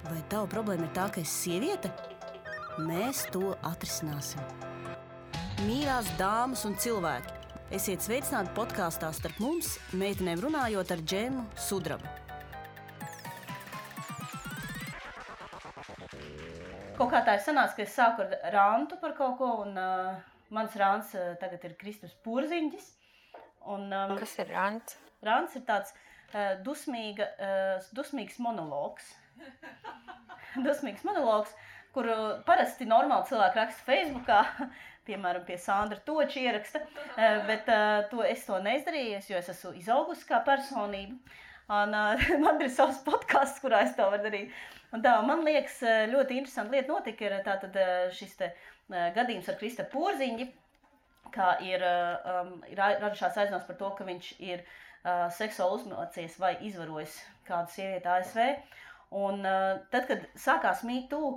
Vai tava problēma ir tā, ka esi sieviete? Mēs to atrisināsim. Mīļās dāmas un cilvēki, esiet sveicināti podkāstā Starp mums, meitenēm runājot ar Džemu Sudrabu. Kaut kā tā ir sanāca, ka es sāku ar rantu par kaut ko, un mans rants tagad ir Kristaps Porziņģis. Kas ir rants? Rants ir tāds dusmīgs monologs. Dusmīgs monologs, kuru parasti normāli cilvēki raksta Facebookā, piemēram, pie Sandra Toča ieraksta, bet es to neizdarīju, jo es esmu izaugusi kā personība. Un, man ir savs podcasts, kurā es to varu darīt. Un tā, man liekas, ļoti interesanta lieta notika, ir tātad šis te gadījums ar Kristapu Porziņģi, kā ir radušās aizdomas par to, ka viņš ir seksuāli uzmācies vai izvarojis kādu sievieti ASV. Un tad, kad sākās Me Too,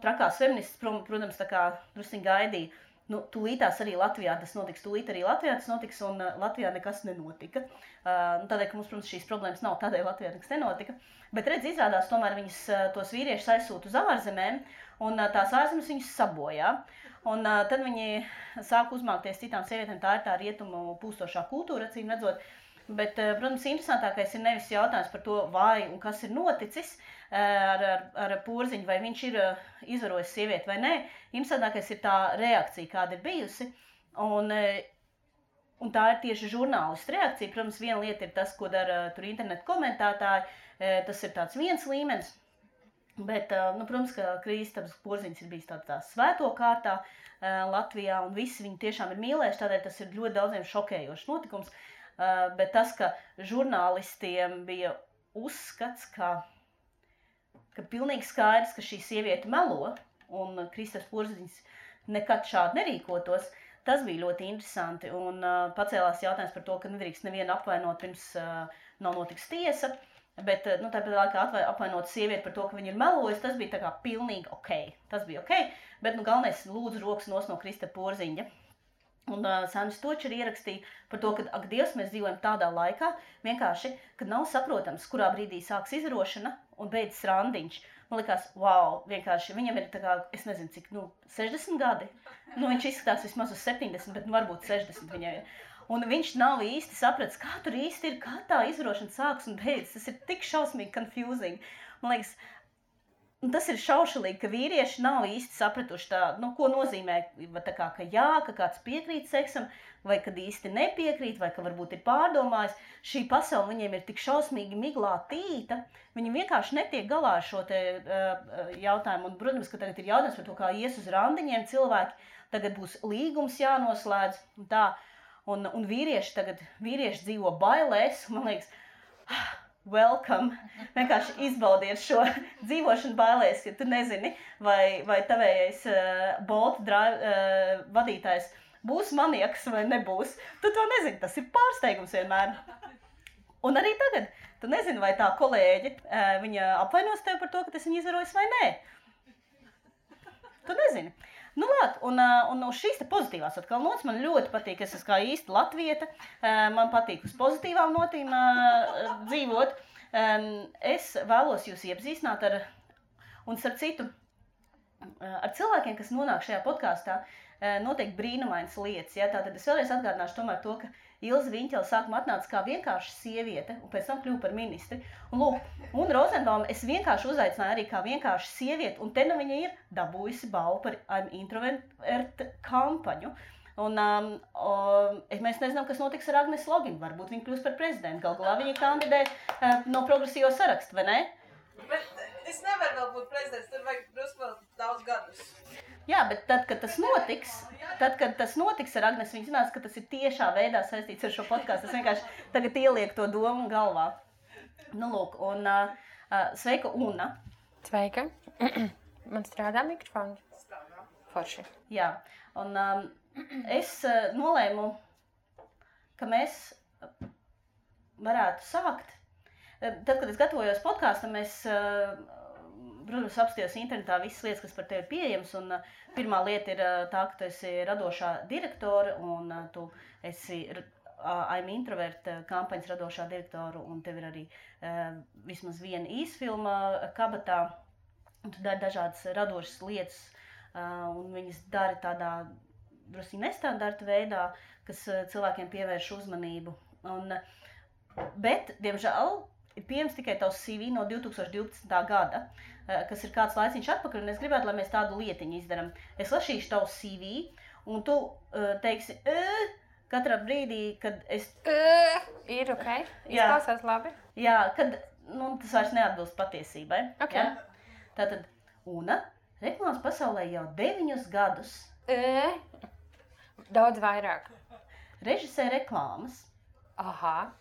trakās feministas, protams, tā kā drusciņ gaidīja, tūlītās arī Latvijā tas notiks, un Latvijā nekas nenotika. Tādēļ, ka mums, protams, šīs problēmas nav, tādēļ Latvijā nekas nenotika. Bet redz, izrādās, tomēr viņas tos vīriešus aizsūta uz ārzemēm, un tās ārzemes viņus sabojā. Un tad viņi sāk uzmākties citām sievietēm, tā ir tā rietumu pūstošā kultūra, acīm redzot. Bet, protams, interesantākais ir nevis jautājums par to, vai un kas ir noticis ar Porziņu, vai viņš ir izvarojis sievieti vai nē. Interesantākais ir tā reakcija, kāda ir bijusi. Un tā ir tieši žurnālistu reakcija. Protams, viena lieta ir tas, ko dara tur internetu komentētāji. Tas ir tāds viens līmenis. Bet, protams, ka Kristaps Porziņģis ir bijis tādā svēto kārtā Latvijā, un visi viņu tiešām ir mīlējuši, tādēļ tas ir ļoti daudziem šokējošs notikums. Bet tas, ka žurnālistiem bija uzskats, ka pilnīgi skaidrs, ka šī sieviete melo, un Kristaps Porziņģis nekad šādi nerīkotos, tas bija ļoti interesanti. Un pacēlās jautājums par to, ka nedrīkst nevienu apvainot, pirms nav notiks tiesa. Bet tāpēc laikā apvainot sievieti par to, ka viņa ir melojusi, tas bija tā kā pilnīgi ok. Tas bija ok, bet galvenais lūdzu rokas nos no Kristapa Porziņģa. Un Sandrs Toča ir ierakstīja par to, ka, ak Dievs, mēs dzīvojam tādā laikā, vienkārši, kad nav saprotams, kurā brīdī sāks izrošana un beidzas randiņš. Man likās, wow, vienkārši, viņam ir tā kā, es nezinu cik, 60 gadi. Viņš izskatās vismaz uz 70, bet varbūt 60 viņai ir. Un viņš nav īsti sapratis, kā tur īsti ir, kā tā izrošana sāks un beidzas. Tas ir tik šausmīgi confusing. Man liekas, tas ir šaušalīgi, ka vīrieši nav īsti sapratuši tā, ko nozīmē, tā kā, ka jā, ka kāds piekrīt seksam, vai kad īsti nepiekrīt, vai ka varbūt ir pārdomājis. Šī pasaule viņiem ir tik šausmīgi miglā tīta, viņi vienkārši netiek galā ar šo te jautājumu. Un, protams, ka tagad ir jautājums par to, kā ies uz randiņiem cilvēki, tagad būs līgums jānoslēdz un tā. Un vīrieši dzīvo bailēs, man liekas, welcome, vienkārši izbaudiet šo dzīvošanu bailēs, ja tu nezini, vai tavējais Bolt vadītājs būs maniaks vai nebūs. Tu to nezini, tas ir pārsteigums vienmēr. Un arī tagad, tu nezini, vai tā kolēģe, viņa apvainos tev par to, ka tas viņa izvarojis vai nē. Tu nezini. Un uz šīs te pozitīvās atkal nots man ļoti patīk, es esmu kā īsti latvieta, man patīk uz pozitīvām notīm dzīvot. Es vēlos jūs iepazīstināt un starp citu, ar cilvēkiem, kas nonāk šajā podkāstā, notiek brīnumainas lietas. Ja? Tātad es vēlreiz atgādināšu tomēr to, ka Ilze Viņķele sākumā atnāca kā vienkārši sieviete, un pēc tam kļuva par ministri. Un Rozenbauma es vienkārši uzaicināju arī kā vienkārši sievieti, un te viņa ir dabūjusi balvu par I'm Introvert kampaņu. Un mēs nezinām, kas notiks ar Agnes Loginu. Varbūt viņa kļūs par prezidentu. Galā viņa kandidē no progresīvo sarakstu, vai ne? Bet es nevaru vēl būt prezidents, tur vajag drusku vēl daudz gadus. Jā, bet tad, kad tas notiks ar Agnes, viņa zinās, ka tas ir tiešā veidā saistīts ar šo podcastu. Es vienkārši tagad ielieku to domu galvā. Sveika, Una. Sveika. Man strādā mikrofons. Strādā. Forši. Jā, un es nolēmu, ka mēs varētu sākt. Tad, kad es gatavojos podkāstam, es, protams, apstījos internetā visas lietas, kas par tevi ir pieejamas. Un pirmā lieta ir tā, ka tu esi radošā direktore un tu esi I'm Introvert kampaņas radošā direktora, un tev ir arī vismaz viena īsfilma kabatā, un tu dari dažādas radošas lietas, un viņas dari tādā drusku nestandarta veidā, kas cilvēkiem pievērš uzmanību. Bet, diemžēl, ir pieejams tikai tavs CV no 2012. gada, kas ir kāds laiciņš atpakaļ, un es gribētu, lai mēs tādu lietiņu izdaram. Es lasīšu tavu CV, un tu teiksi, katrā brīdī, kad es... Ir ok, izklausās labi. Jā, kad tas vairs neatbilst patiesībai. Okay. Ja? Tātad, Una, reklāmas pasaulē jau 9 gadus. Daudz vairāk. Režisē reklāmas. Aha.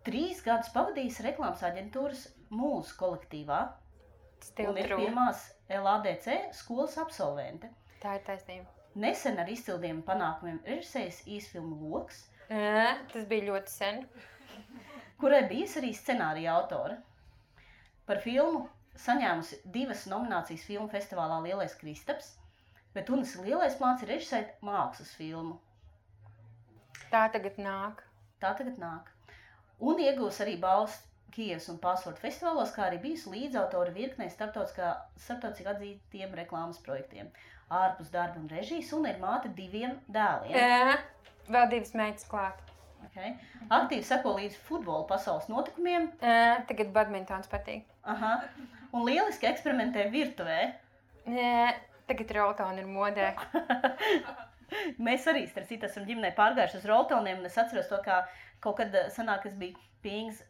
3 gadus pavadījis reklāmas aģentūras Mūsu kolektīvā. Un ir True. pirmās LADC skolas absolvente. Tā ir taisnība. Nesen ar izcildiem panākumiem režisējis īsfilmu Loks, Tas bija ļoti sen. kurai bijis arī scenārija autore. Par filmu saņēmusi 2 nominācijas filmu festivālā Lielais Kristaps, bet Unas lielais plāns ir režisēt mākslas filmu. Tā tagad nāk. Un iegūs arī balvas Kijevas un Password festivālos, kā arī bijusi līdzautora virknei starptautiski atzītiem reklāmas projektiem. Ārpus darba un režijas, un ir māte 2 dēliem. Vēl 2 meitas klāt. Okay. Aktīvi seko līdz futbola pasaules notikumiem. Tagad badmintons patīk. Aha. Un lieliski eksperimentē virtuvē. Tagad roltoni ir modē. Mēs arī, starp citu, esam ģimenē pārgājuši uz roltoniem, un es atceros to, kā kaut kad sanāk, es biju pie Ingas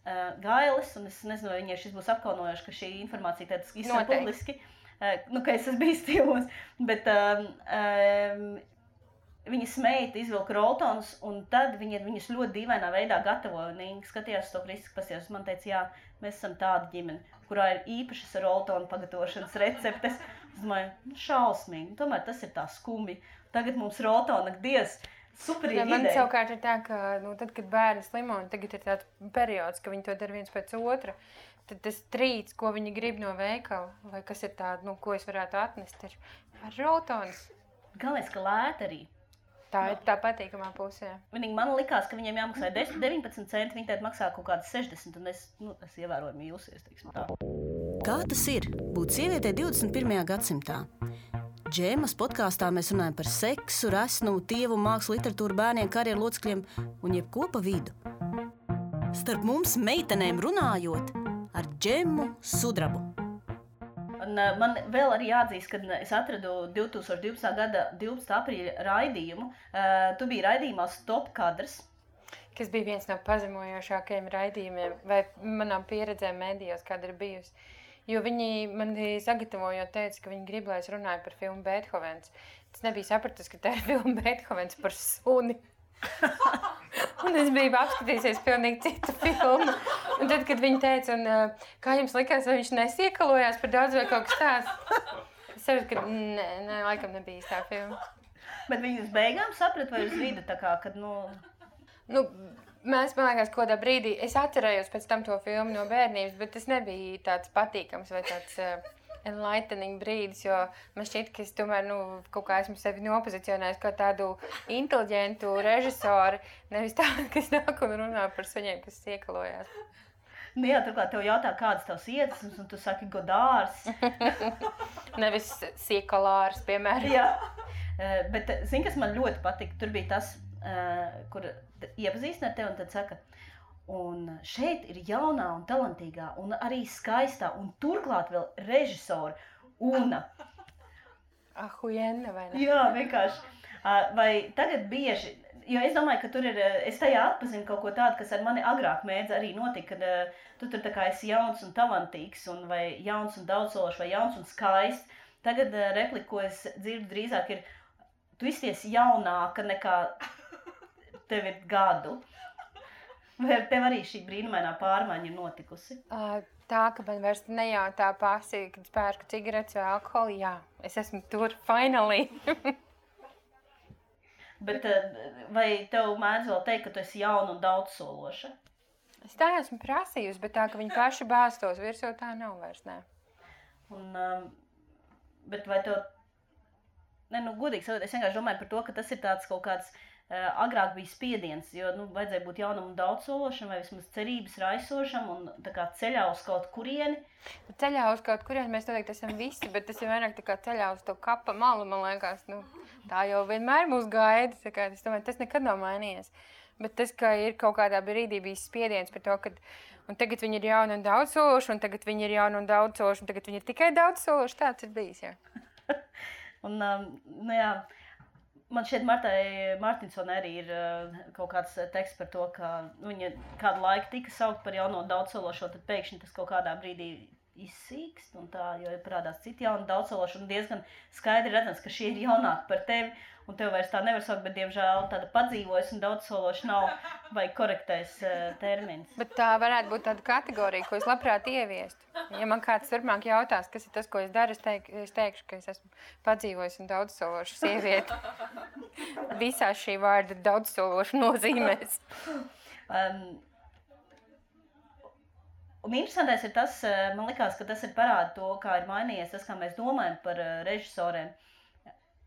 Gailes, un es nezinu, vai viņai šis būs apkaunojoši, ka šī informācija tādas izsaka publiski, ka es esmu bijis stīvos, bet viņas meita izvilka roltonus, un tad viņas ļoti dīvainā veidā gatavoja, un Inga skatījās to kritiski, pasījās, man teica, jā, mēs esam tāda ģimene, kurā ir īpašas roltonu pagatavošanas receptes. Es domāju, šausmīgi, tomēr tas ir tā skumji. Tagad mums roltona, diez, superīgi ideja. Man savukārt ir tā, ka tad, kad bērni slimo, un tagad ir tāds periods, ka viņi to dara viens pēc otra, tad tas trīts, ko viņi grib no veikala, vai kas ir tāda, ko es varētu atnest, ir ar roltonas. Galvenais, ka lēta arī. Tā ir tā patīkamā pusē. Vienīgi man likās, ka viņiem jāmaksā 19 centi, viņi tēt maksā kaut kādas 60, un es ievērojami jūsies, teiksim tā. Kā tas ir būt sievietē 21. gadsimtā? Džēmas podkāstā mēs runājam par seksu, resnumu, tievu, mākslu, literatūru, bērniem, karjeru locekļiem un jebko pa vidu. Starp mums meitenēm runājot ar Džemu Sudrabu. Un man vēl arī jāatzīst, kad es atradu 2012. gada 12. aprīļa raidījumu. Tu biji raidījumā Stop kadrs. Kas bija viens no pazemojošākajiem raidījumiem vai manām pieredzēm mēdījos, kāda ir bijusi. Jo viņi man sagatavojot teica, ka viņi grib, lai es runāju par filmu Beethovens. Tas nebija sapratis, ka tā ir filma Beethovens par suni. Un es biju apskatījusies pilnīgi citu filmu. Un tad, kad viņi teica, kā jums likās, vai viņš nesiekalojās par daudz vai kaut kas tāds? Es saprotu, ka nē, laikam nebija īstā filma. Bet viņi uz beigām saprat vai uz vidu, tā kā, kad, Mēs, man liekas, kādā brīdī, es atcerējos pēc tam to filmu no bērnības, bet tas nebija tāds patīkams vai tāds enlightening brīdis, jo man šķiet, ka es tomēr, kaut kā esmu sevi nopozicionējis kā tādu inteliģentu režisoru, nevis tādu, kas nāk un runā par suņiem, kas iekalojās. Jā, turklāt tev jautā, kādas tavs iedvesmas, un tu saki Godārs. Nevis siekalārs, piemēram. Jā, bet zini, kas man ļoti patika, tur bija tas, kur iepazīstina ar tevi un tad saka, un šeit ir jaunā un talantīgā un arī skaistā un turklāt vēl režisora Una. Ahujenna, vai ne? Jā, vienkārši. Vai tagad bieži, jo es domāju, ka tur ir, es tajā atpazinu kaut ko tādu, kas ar mani agrāk mēdz arī notika, kad tu tur tā kā esi jauns un talantīgs, un vai jauns un daudzsološs, vai jauns un skaists. Tagad replika, ko es dzirdu drīzāk ir, tu izties jaunāka nekā tev ir gadu. Vai ar tev arī šī brīnumainā pārmaiņa ir notikusi? Tā, ka man vairs nejautā pasi, kad pērku cigaretes vai alkoholu, jā, es esmu tur, finally. Bet vai tev mēdz vēl teikt, ka tu esi jauna un daudzsološa? Es tā esmu prasījusi, bet tā, ka viņi paši bāstos virsū, tā nav vairs, nē. Bet vai tev... Godīgi sakot, es vienkārši domāju par to, ka tas ir tāds kaut kāds agrāk bija spiediens, jo vajadzēja būt jaunam un daudzsološam, vai vismaz cerības raisošam un tā kā ceļā uz kaut kurieni. Ceļā uz kaut kurieni mēs noteikti esam visi, bet tas ir vairāk tā kā ceļā uz to kapa malu, man liekas. Tā jau vienmēr mūs gaida, es domāju, tas nekad nav mainījies. Bet tas, ka ir kaut kādā brīdī bijis spiediens par to, ka un tagad viņi ir jauni un daudzsološi, un tagad viņi ir jauni un daudzsološi, un tagad viņi ir tikai daudzsološi, tāds ir bijis, jā. Un, jā, man šķiet, Martai Martinsonai arī ir kaut kāds teksts par to, ka viņa kādu laiku tika saukt par jauno daudzsološo, tad pēkšņi tas kaut kādā brīdī izsīkst, un tā, jo ir parādās citi jauni daudzsološi, un diezgan skaidri redzams, ka šie ir jaunāki par tevi, un tev vairs tā nevar saukt, bet, diemžēl, tāda padzīvojas un daudzsološi nav, vai korektais termins. Bet tā varētu būt tāda kategorija, ko es labprāt ieviestu. Ja man kāds turpmāk jautās, kas ir tas, ko es daru, es teikšu, ka es esmu padzīvojis un daudzsološa sieviete. Visās šī vārda daudzsološa nozīmēs. Un interesantais ir tas, man likās, ka tas ir parāda to, kā ir mainījies tas, kā mēs domājam par režisoriem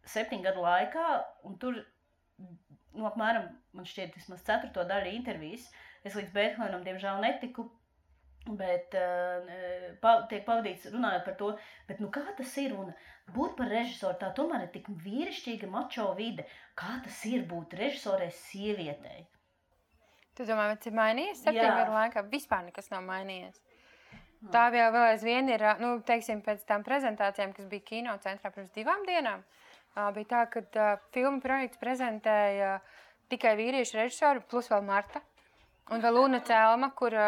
7 gadu laikā, un tur, apmēram, man šķiet, vismaz 4. daļa intervijas, es līdz Beethovenam, diemžēl, netiku, bet tiek pavadīts runājot par to, bet kā tas ir, un būt par režisoru, tā tomēr ir tik vīrišķīga mačo vide, kā tas ir būt režisorei sievietei? Tu domā, tas ir mainījies 7 gadu laikā? Vispār nekas nav mainījies. Tā vēl aizvien ir, teiksim, pēc tām prezentācijām, kas bija kino centrā pirms 2 dienām, bija tā, ka filmu projekts prezentēja tikai vīriešu režisoru, plus vēl Marta. Un vēl Luna Celma, kur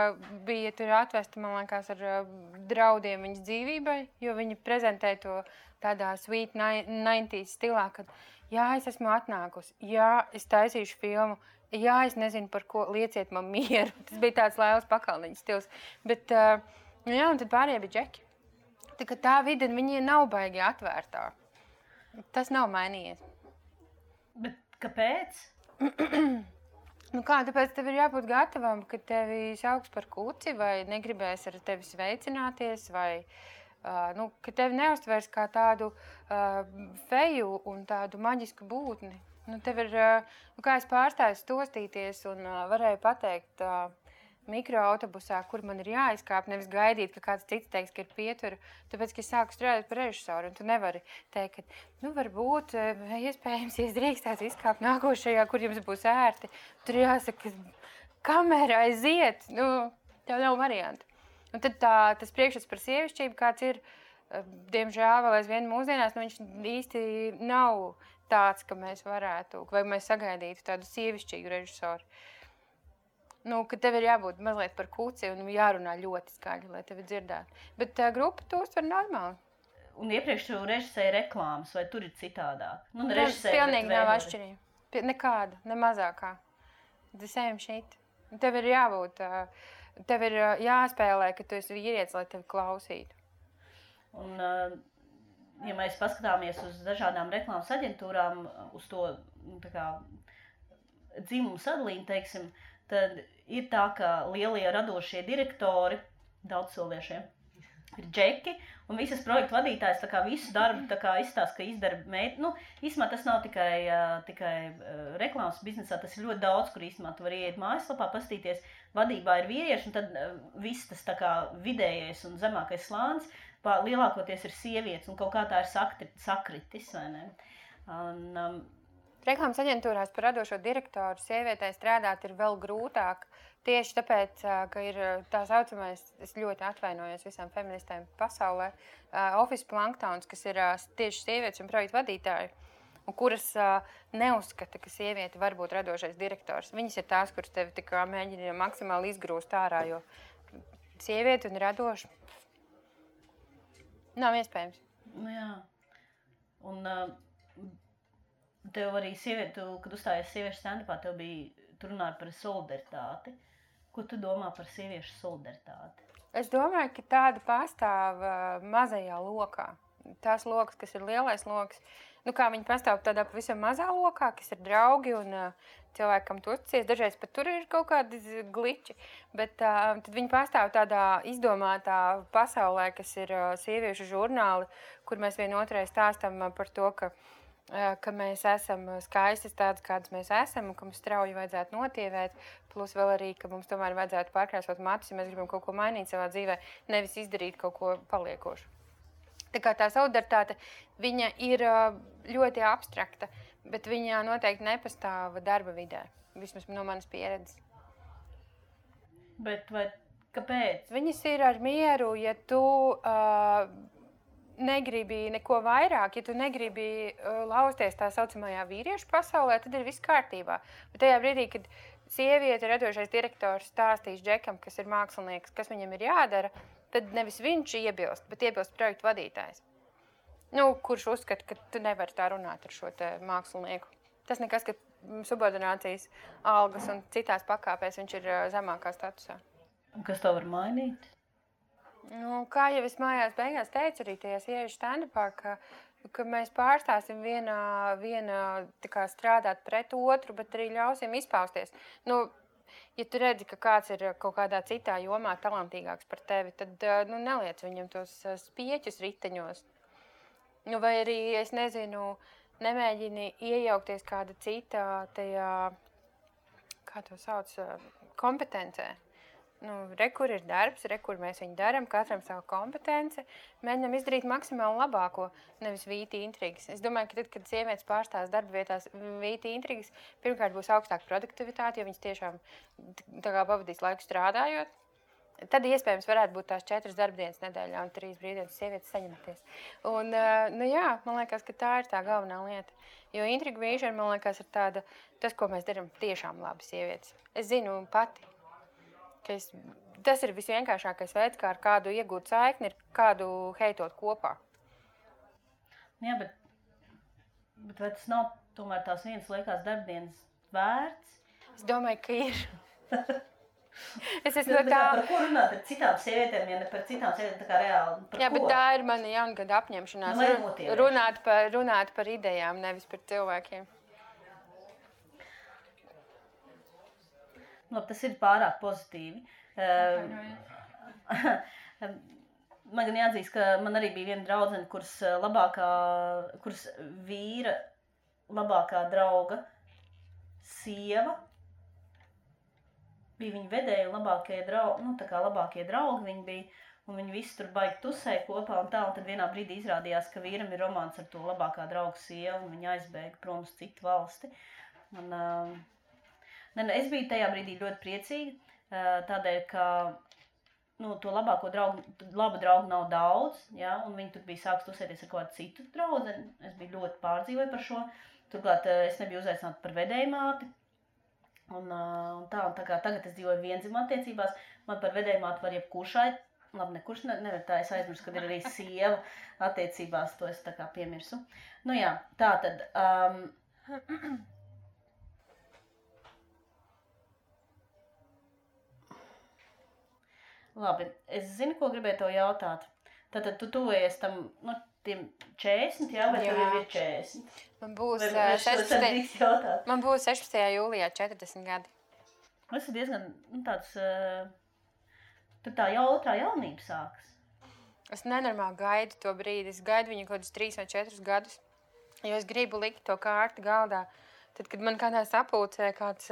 bija tur atvesta, man liekas, ar draudiem viņas dzīvībai, jo viņa prezentēja to tādā sweet 90s stilā, kad jā, es esmu atnākusi, jā, es taisīšu filmu, jā, es nezinu par ko, lieciet man mieru. Tas bija tāds Lailas Pakalniņas stils. Bet, jā, un tad pārējie bija džeki. Tā vide, viņi nav baigi atvērtā. Tas nav mainījies. Bet kāpēc? Tāpēc tev ir jābūt gatavam, ka tevi sauks par kuci, vai negribēs ar tevi sveicināties, vai ka tevi neuztvers kā tādu feju un tādu maģisku būtni. Tev ir, kā es pārstāju stostīties un varēju pateikt mikroautobusā, kur man ir jāizkāp, nevis gaidīt, ka kāds cits teiks, ka ir pietura, tāpēc, ka es sāku strādāt par režisoru, un tu nevari teikt, ka, varbūt, iespējams, ja drīkstās izkāpt nākošajā, kur jums būs ērti, tur jāsaka, kamera aiziet, tev nav varianti. Un tad tas priekšstats par sievišķību, kāds ir, diemžēl vēl aizvien mūsdienās, viņš īsti nav tāds, ka mēs varētu, vai mēs sagaidītu tādu sievišķīgu režisoru. Ka tev ir jābūt mazliet par kuci un jārunā ļoti skaļi, lai tevi dzirdētu. Bet grupa to uztver normāli. Un iepriekš tu režisēji reklāmas, vai tur ir citādāk? Pilnīgi nav atšķirība. Nekāda, ne mazākā. The same shit. Tev ir jābūt, tev ir jāspēlē, ka tu esi vīrietis, lai tevi klausītu. Un, ja mēs paskatāmies uz dažādām reklāmas aģentūrām, uz to dzimumu sadalījumu, teiksim, tad ir tā, ka lielie radošie direktori, daudzsoliešie, ir džeki, un visas projektu vadītājs visu darbu izstāsta, ka izdara meita. Īstumā tas nav tikai reklāmas biznesā, tas ir ļoti daudz, kur īstumā tu vari iet mājaslapā, paskatīties, vadībā ir vīrieši, un tad viss tas vidējais un zemākais slānis, lielākoties ir sievietes, un kaut kā tā ir sakritis, vai ne? Reklāmas aģentūrās par radošo direktoru sievietei strādāt ir vēl grūtāk, tieši tāpēc, ka ir tā saucamais, es ļoti atvainojos visām feministēm pasaulē, office planktons, kas ir tieši sievietes un projektu vadītāji, un kuras neuzskata, ka sieviete var būt radošais direktors. Viņas ir tās, kuras tevi tikā mēģina maksimāli izgrūst ārā, jo sieviete un radoša nav iespējams. Jā. Un tev arī sieviete, kad uzstājies sieviešu stand-upā, tev tu runāji par solidaritāti. Ko tu domā par sieviešu solidaritāti? Es domāju, ka tāda pastāv mazajā lokā. Tās lokas, kas ir lielais loks, kā viņi pastāv tādā pavisam mazā lokā, kas ir draugi un cilvēkam tu uzticies. Dažreiz pat tur ir kaut kādi gliči, bet tad viņi pastāv tādā izdomātā pasaulē, kas ir sieviešu žurnāli, kur mēs vienotrai stāstam par to, ka ka mēs esam skaistas tādas, kādas mēs esam, un ka mums strauji vajadzētu notievēt, plus vēl arī, ka mums tomēr vajadzētu pārkrāsot matus, ja mēs gribam kaut ko mainīt savā dzīvē, nevis izdarīt kaut ko paliekošu. Tā kā tā solidaritāte, viņa ir ļoti abstrakta, bet viņa noteikti nepastāv darba vidē, vismaz no manas pieredzes. Bet vai kāpēc? Viņas ir ar mieru, ja tu negribi neko vairāk, ja tu negribi lausties tā saucamajā vīriešu pasaulē, tad ir viss kārtībā. Bet tajā brīdī, kad sieviete radošais direktors stāstīs Džekam, kas ir mākslinieks, kas viņam ir jādara, tad nevis viņš iebilst, bet iebilst projektu vadītājs. Kurš uzskata, ka tu nevari tā runāt ar šo te mākslinieku. Tas nekas, ka subordinācijas algas un citās pakāpēs viņš ir zemākā statusā. Un kas to var mainīt? Kā jau es mājās beigās teicu arī tajā sieviešu stand-upā, ka mēs pārstāsim viena tā kā strādāt pret otru, bet arī ļausim izpausties. Ja tu redzi, ka kāds ir kaut kādā citā jomā talantīgāks par tevi, tad neliec viņam tos spieķus riteņos. Vai arī, es nezinu, nemēģini iejaukties kāda cita tajā, kā to sauc, kompetencē. Kur ir darbs, kur mēs viņu daram, katram savu kompetenci, mēģinām izdarīt maksimāli labāko, nevis vīti intrigas. Es domāju, ka tad, kad sievietes pārstās darba vietās vīti intrigas, pirmkārt būs augstāka produktivitāte, jo viņas tiešām tā kā pavadīs laiku strādājot. Tad iespējams varētu būt tās 4 darbdienas nedēļā un 3 brīvdienas sievietes saņematies. Un, man liekas, ka tā ir tā galvenā lieta. Jo intriga vīšana, man liekas, ir tāda, tas, ko mēs darām tiešām labi sievietes. Es zinu pati. Tas ir visvienkāršākais veids, kā ar kādu iegūt saikni, ir kādu heitot kopā. Jā, bet vai tas nav tomēr tās vienas liekās darbdienas vērts? Es domāju, ka ir. Par ko runāt ar citām sievietēm, ja ne par citām sievietēm, tā kā reāli? Jā, bet tā ir mana jaungada apņemšanās. Runāt par idejām, nevis par cilvēkiem. Tas ir pārāk pozitīvi. Man gan jāatzīst, ka man arī bija viena draudzene, kuras vīra labākā drauga sieva bija viņa vedēja labākie draugi viņi bija, un viņi visi tur baigi tusēja kopā un tā, un tad vienā brīdī izrādījās, ka vīram ir romāns ar to labākā drauga sievu, un viņa aizbēga prom uz citu valsti. Es biju tajā brīdī ļoti priecīga, tādēļ, ka to labu draugu nav daudz, ja, un viņi tur bija sāks tusēties ar kādu citu draudzeni. Es biju ļoti pārdzīvoju par šo. Turklāt es nebiju uzaicināta par vedējmāti. Un tā kā tagad es dzīvoju vienzimuma attiecībās, man par vedējmāti var jebkurš nekurš nevar tā, es aizmirsu, kad ir arī sieva attiecībās, to es tā kā piemirsu. Tā tad... Labi, es zinu, ko gribēju tev jautāt. Tātad tu tuvojies tam, tiem 40, jā, vai tev jau ir 40? Man būs 16. jūlijā 40 gadi. Tas ir diezgan tāds, tur tā otrā jaunība sākas. Es nenormāli gaidu to brīdi, es gaidu viņu kaut kādus 3 vai 4 gadus, jo es gribu likt to kārti galdā. Tad, kad man kādā sapulcē kāds...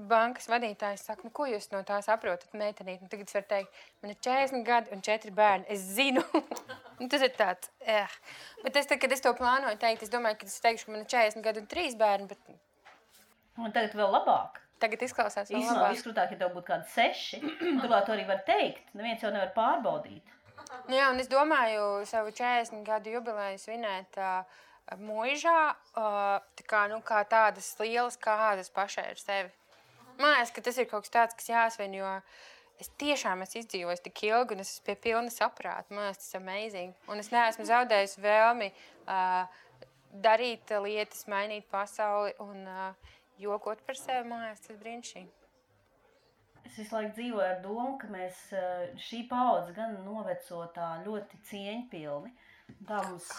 bankas vadītājs saka, ko jūs no tā saprotat, meitenīt? Tagad es varu teikt, man ir 40 gadi un 4 bērni. Es zinu. Tas ir tāds, Bet kad es to plānoju teikt, es domāju, ka es teikšu, ka man ir 40 gadi un 3 bērni, bet... Un tagad vēl labāk. Tagad izklausās vēl labāk. Viskrūtāk, ja tev būtu kādi 6, turklāt to arī var teikt. Neviens jau nevar pārbaudīt. Jā, un es domāju savu 40 gadu jubileju svinēt muižā, kā tādas lielas kādas pašai ar sevi. Man liekas, ka tas ir kaut kas tāds, kas jāsvin, jo es tiešām esmu izdzīvojis tik ilgi un es esmu pie pilna saprāta. Man liekas, tas ir amazing. Un es neesmu zaudējis vēlmi darīt lietas, mainīt pasauli un jokot par sevi. Man liekas, tas brīnišķīgi. Es visu laiku dzīvoju ar domu, ka mēs šī paudze gan noveco tā ļoti cieņpilni. Tā mums...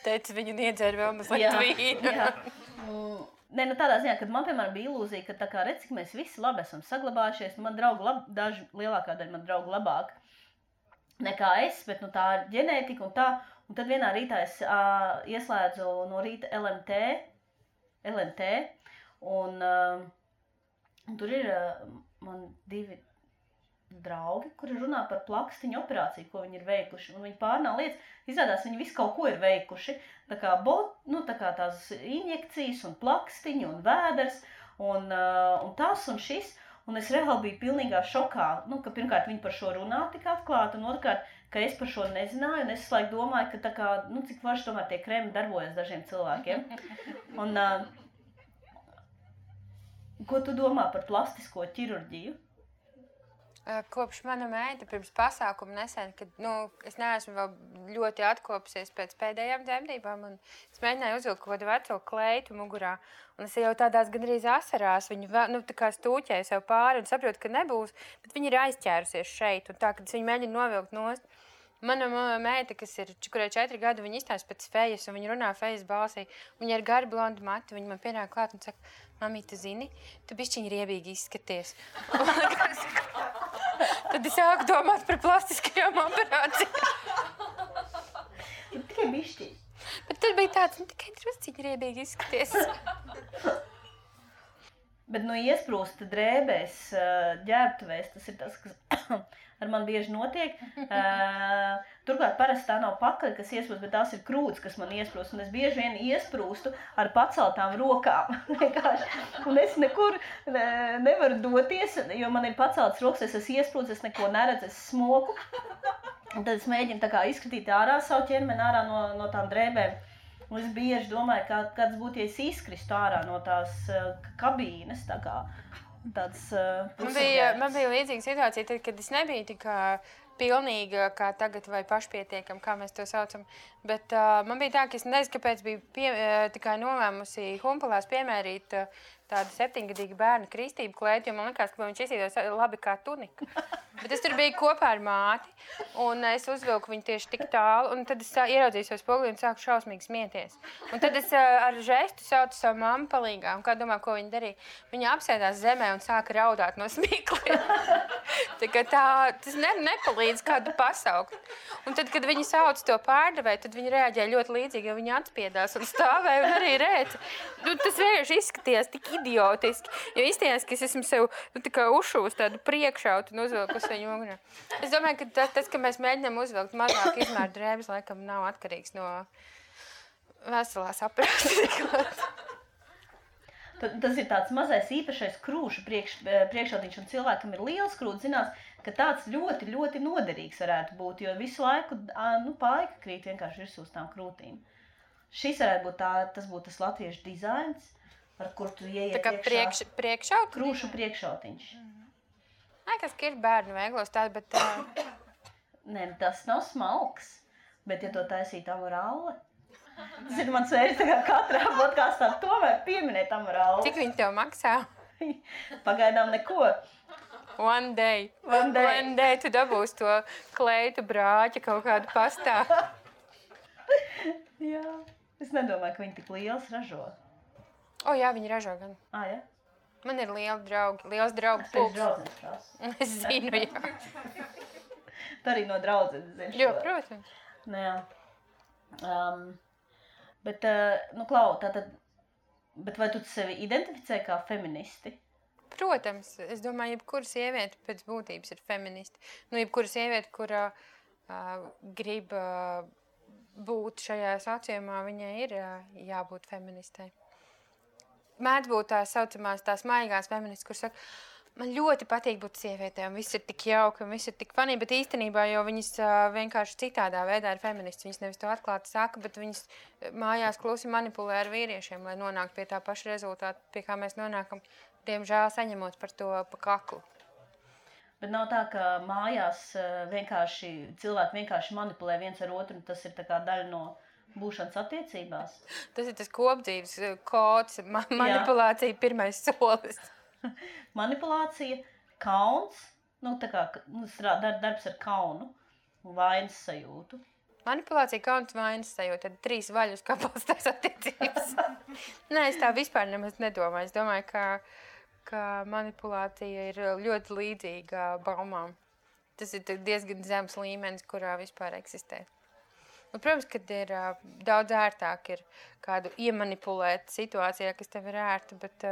Teici, viņu niedzēra vēl mazliet vīnu. Jā. Tādā ziņā, kad man, piemēram, bija ilūzija, ka tā kā redz, cik mēs visi labi esam saglabājušies, man draugu daži lielākā daļa man draugu labāk nekā es, bet nu, tā ir ģenētika un tā. Un tad vienā rītā es ieslēdzu no rīta LMT un tur ir man 2 draugi, kuri runā par plakstiņu operāciju, ko viņi ir veikuši. Un viņi pārnā lietas, izrādās, viņi visu kaut ko ir veikuši. Tā kā tās injekcijas un plakstiņu un vēders un tas un šis. Un es reāli biju pilnīgā šokā, ka pirmkārt viņi par šo runā tik atklāti, un otrkārt, ka es par šo nezināju, un es laiku domāju, ka tā kā, cik varši tomēr tie kremi darbojas dažiem cilvēkiem. Un, ko tu domā par plastisko ķirurģiju? Kopš mana meita pirms pasākuma nesen, kad es neesmu vēl ļoti atkopusies pēc pēdējām dzemdībām, un es mēģināju uzvilkt kaut kādu veco kleitu mugurā, un es jau tādās gandrīz asarās viņu tā kā stūķēju sev pāri un saprotu, ka nebūs, bet viņi ir aizķērusies šeit, un tā, kad es viņu mēģinu novilkt nost. Mana meita, kurai 4 gadi, viņa izstāsta pēc fejas, un viņa runā fejas balsī. Viņa ir gari blondi mati, viņa man pienāk klāt un saka, mamī, tu zini, tu bišķiņi riebīgi izskaties. Tad es sāku domāt par plastiskajām operācijām. Tikai bišķiņi. Bet tad bija tāds, tikai drusciņi riebīgi izskaties. Bet iesprūst drēbēs, ģērbtuvēs, tas ir tas, kas ar man bieži notiek. Turklāt parasti tā nav pakaļ, kas iesprūst, bet tās ir krūts, kas man iesprūst. Un es bieži vien iesprūstu ar paceltām rokām. Un es nekur nevaru doties, jo man ir paceltas rokas, es esmu iesprūst, es neko neredzu, es smoku. Un tad es mēģinu tā kā izskatīt ārā savu ķermeni ārā no tām drēbēm. Un es bieži domāju, kāds būtu, ja es izkristu ārā no tās kabīnes, tā kā tāds pusapģērbs. Man bija līdzīga situācija, tad, kad es nebiju tik pilnīga, kā tagad, vai pašpietiekama, kā mēs to saucam. Bet man bija tā, ka es nezinu, kāpēc biju tikai nolēmusi Humpalās piemērīt tādu 7-gadīgu bērnu kristību klēti, jo man likās, ka viņš izsīdos labi kā tunika. Bet es tur biju kopā ar māti, un es uzvilku viņu tieši tik tālu, un tad es ieraudzīju savu spoguli un sāku šausmīgi smieties. Un tad es ar žestu saucu savu mammu palīgā, un kā domā, ko viņa darīja? Viņa apsēdās zemē un sāka raudāt no smiekliem. Tas nepalīdz kādu pasaukt. Un tad, kad viņi sauc to pārdevēju, tad viņi reaģēja ļoti līdzīgi, jo viņi atspiedās un stāvēja un arī rēca. Tas vienkārši izskatījās tik idiotiski, jo izstījās, ka es esmu sev uzšūs tādu priekšautu un uzvilkus viņu mugurā. Es domāju, ka tas, ka mēs mēģinām uzvilkt mazāk izmēru drēbes, laikam nav atkarīgs no veselās aprākstas. Tas ir tāds mazais īpašais krūšu priekšautiņš, un cilvēkam ir liels krūts, zinās, ka tāds ļoti, ļoti noderīgs varētu būt, jo visu laiku paika krīt vienkārši virsū uz tām krūtīm. Šis varētu būt tas būtu tas latviešu dizains, ar kur tu ieiet iekšā. Priekšaut? Krūšu priekšautiņš. Liekas, ka ir bērnu veiklos tādi, bet... Nē, tas nav smalks, bet ja to taisīt amorāli, tas ir mans vērts, tā kā katrā podkāstā tomēr pieminēt amorāli. Cik viņi tev maksā? Pagaidām neko. One day tu dabūsi to kleitu brāķi kaut kādu pastā. Jā, es nedomāju, ka viņi tik liels ražo. Jā, viņi ražo gan. Ja? Man ir liels draugu pulks. Es zinu, jā. Tu arī no draudzenes zini. Jo, protams. Jā. Bet, Klau, bet vai tu sevi identificē kā feministi? Protams, es domāju, jebkura sieviete pēc būtības ir feministi. Jebkura sieviete, kura grib būt šajā sociumā, viņai ir jābūt feministai. Mēdz būt tās saucamās, tās maigās feministas, kuras saka, man ļoti patīk būt sievietēm, viss ir tik jauki un viss ir tik funny, bet īstenībā jau viņas vienkārši citādā veidā ir feministas. Viņas nevis to atklāti saka, bet viņas mājās klusi manipulē ar vīriešiem, lai nonāktu pie tā paša rezultāta, pie kā mēs nonākam, diemžēl saņemot par to pa kaklu. Bet nav tā, ka mājās cilvēki vienkārši manipulē viens ar otru, un tas ir tā kā daļa no būšanas attiecībās? Tas ir tas kopdzīves kods, manipulācija pirmais solis. Manipulācija, kauns, darbs ar kaunu un vainas sajūtu. Manipulācija, kauns, vainas sajūta, tad 3 vaļus kā balstās attiecības. Nē, es tā vispār nemaz nedomāju. Es domāju, ka manipulācija ir ļoti līdzīga baumām. tas ir diezgan zems līmenis, kurā vispār eksistē. Un, protams, kad ir daudz ērtāk ir kādu iemanipulēt situācijā, kas tev ir ērta, bet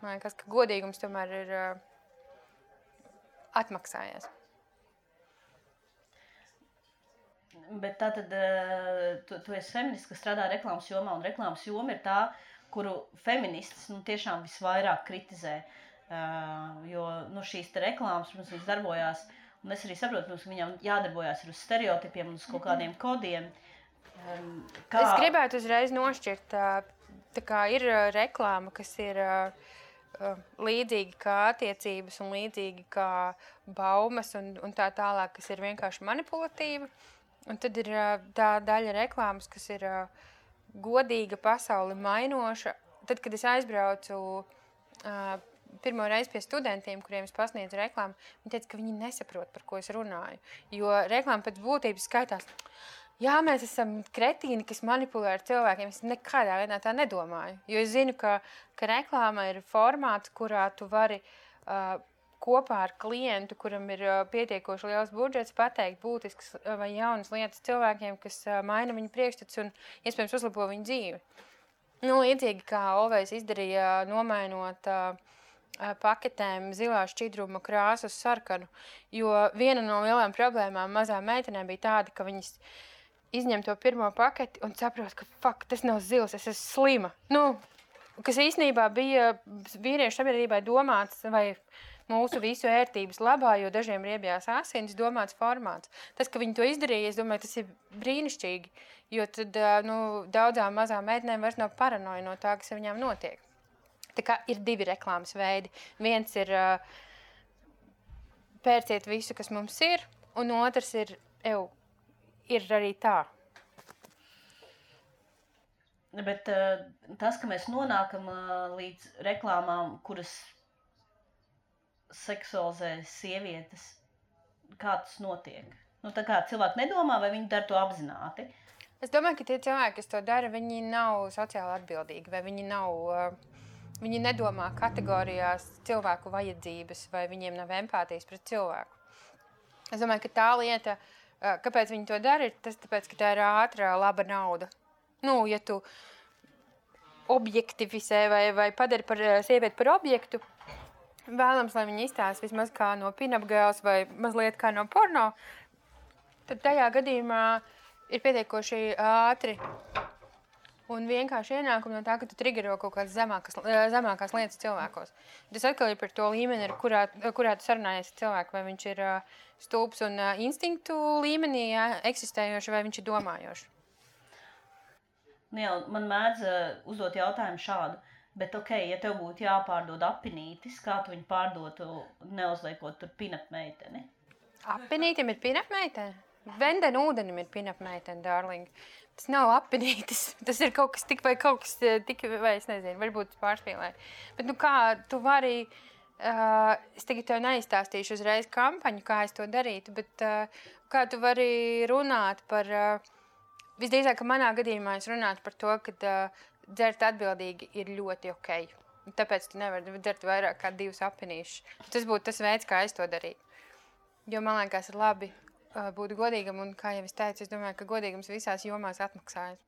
man liekas, ka godīgums tomēr ir atmaksājies. Bet tātad tu esi feminists, kas strādā reklāmas jomā, un reklāmas joma ir tā, kuru feministas tiešām visvairāk kritizē, jo šīs te reklāmas, protams, viņas darbojās. Un es arī saprotu, ka viņam jādarbojās uz stereotipiem un uz kaut kādiem kodiem. Es gribētu uzreiz nošķirt, tā kā ir reklāma, kas ir līdzīgi kā attiecības un līdzīgi kā baumas un tā tālāk, kas ir vienkārši manipulatīva. Un tad ir tā daļa reklāmas, kas ir godīga, pasauli mainoša. Tad, kad es aizbraucu pirmo reizi pie studentiem, kuriem es pasniedzu reklāmu, viņi teica, ka viņi nesaprot, par ko es runāju. Jo reklāma pēc būtības skaitās, jā, mēs esam kretīni, kas manipulē ar cilvēkiem. Es nekādā veidā tā nedomāju. Jo es zinu, ka reklāma ir formāts, kurā tu vari kopā ar klientu, kuram ir pietiekoši liels budžets, pateikt būtisks vai jaunas lietas cilvēkiem, kas maina viņu priekšstats un iespējams uzlabo viņu dzīvi. Līdzīgi kā Olvejs izdarīja, nomainot paketēm zilā šķidruma krāsu uz sarkanu, jo viena no lielām problēmām mazām meitenēm bija tāda, ka viņas izņem to pirmo paketi un saprot, ka tas nav zils, es esmu slima. Kas īstenībā bija vīriešu sabiedrībai domāts vai mūsu visu ērtības labā, jo dažiem riebjās asinis domāts formāts. Tas, ka viņi to izdarīja, es domāju, tas ir brīnišķīgi, jo tad daudzām mazām meitenēm vairs nav paranoja no tā, kas viņām notiek. Tā kā ir divi reklāmas veidi. Viens ir pērciet visu, kas mums ir, un otrs ir arī tā. Bet tas, ka mēs nonākam līdz reklāmām, kuras seksualizē sievietes, kā tas notiek? Tā kā cilvēki nedomā, vai viņi dara to apzināti? Es domāju, ka tie cilvēki, kas to dara, viņi nav sociāli atbildīgi, vai viņi nedomā kategorijās cilvēku vajadzības, vai viņiem nav empātijas pret cilvēku. Es domāju, ka tā lieta, kāpēc viņi to dara, ir tas tāpēc, ka tā ir ātra, laba nauda. Ja tu objektivizē vai padari par sievieti par objektu, vēlams, lai viņi izstāsta vismaz kā no pin-up girls vai mazliet kā no porno, tad tajā gadījumā ir pietiekoši ātri un vienkārši ienākumi no tā, ka tu triggero kaut kādas zemākās lietas cilvēkos. Tas atkal ir par to līmeni, kurā tu sarunājies ar cilvēku, vai viņš ir stulbs un instinktu līmenī eksistējoši, vai viņš ir domājoši. Man mēdz uzdot jautājumu šādu, bet ja tev būtu jāpārdod apinītis, kā tu viņu pārdotu, neuzliekot tur pin-up meiteni? Apinītim ir pin-up meiteni? Venden ūdenim ir pin-up meiteni, darling. Tas nav apinītis, tas ir kaut kas tik, vai es nezinu, varbūt pārspīlēju. Bet kā tu vari, es tagad tev neizstāstīšu uzreiz kampaņu, kā es to darītu, bet kā tu vari runāt par, visdrīzāk, ka manā gadījumā es runātu par to, ka dzert atbildīgi ir ļoti ok. Tāpēc tu nevari dzert vairāk kā 2 apinīšus. Tas būtu tas veids, kā es to darītu. Jo man liekas ir labi būt godīgam, un, kā jau es teicu, es domāju, ka godīgums visās jomās atmaksājas.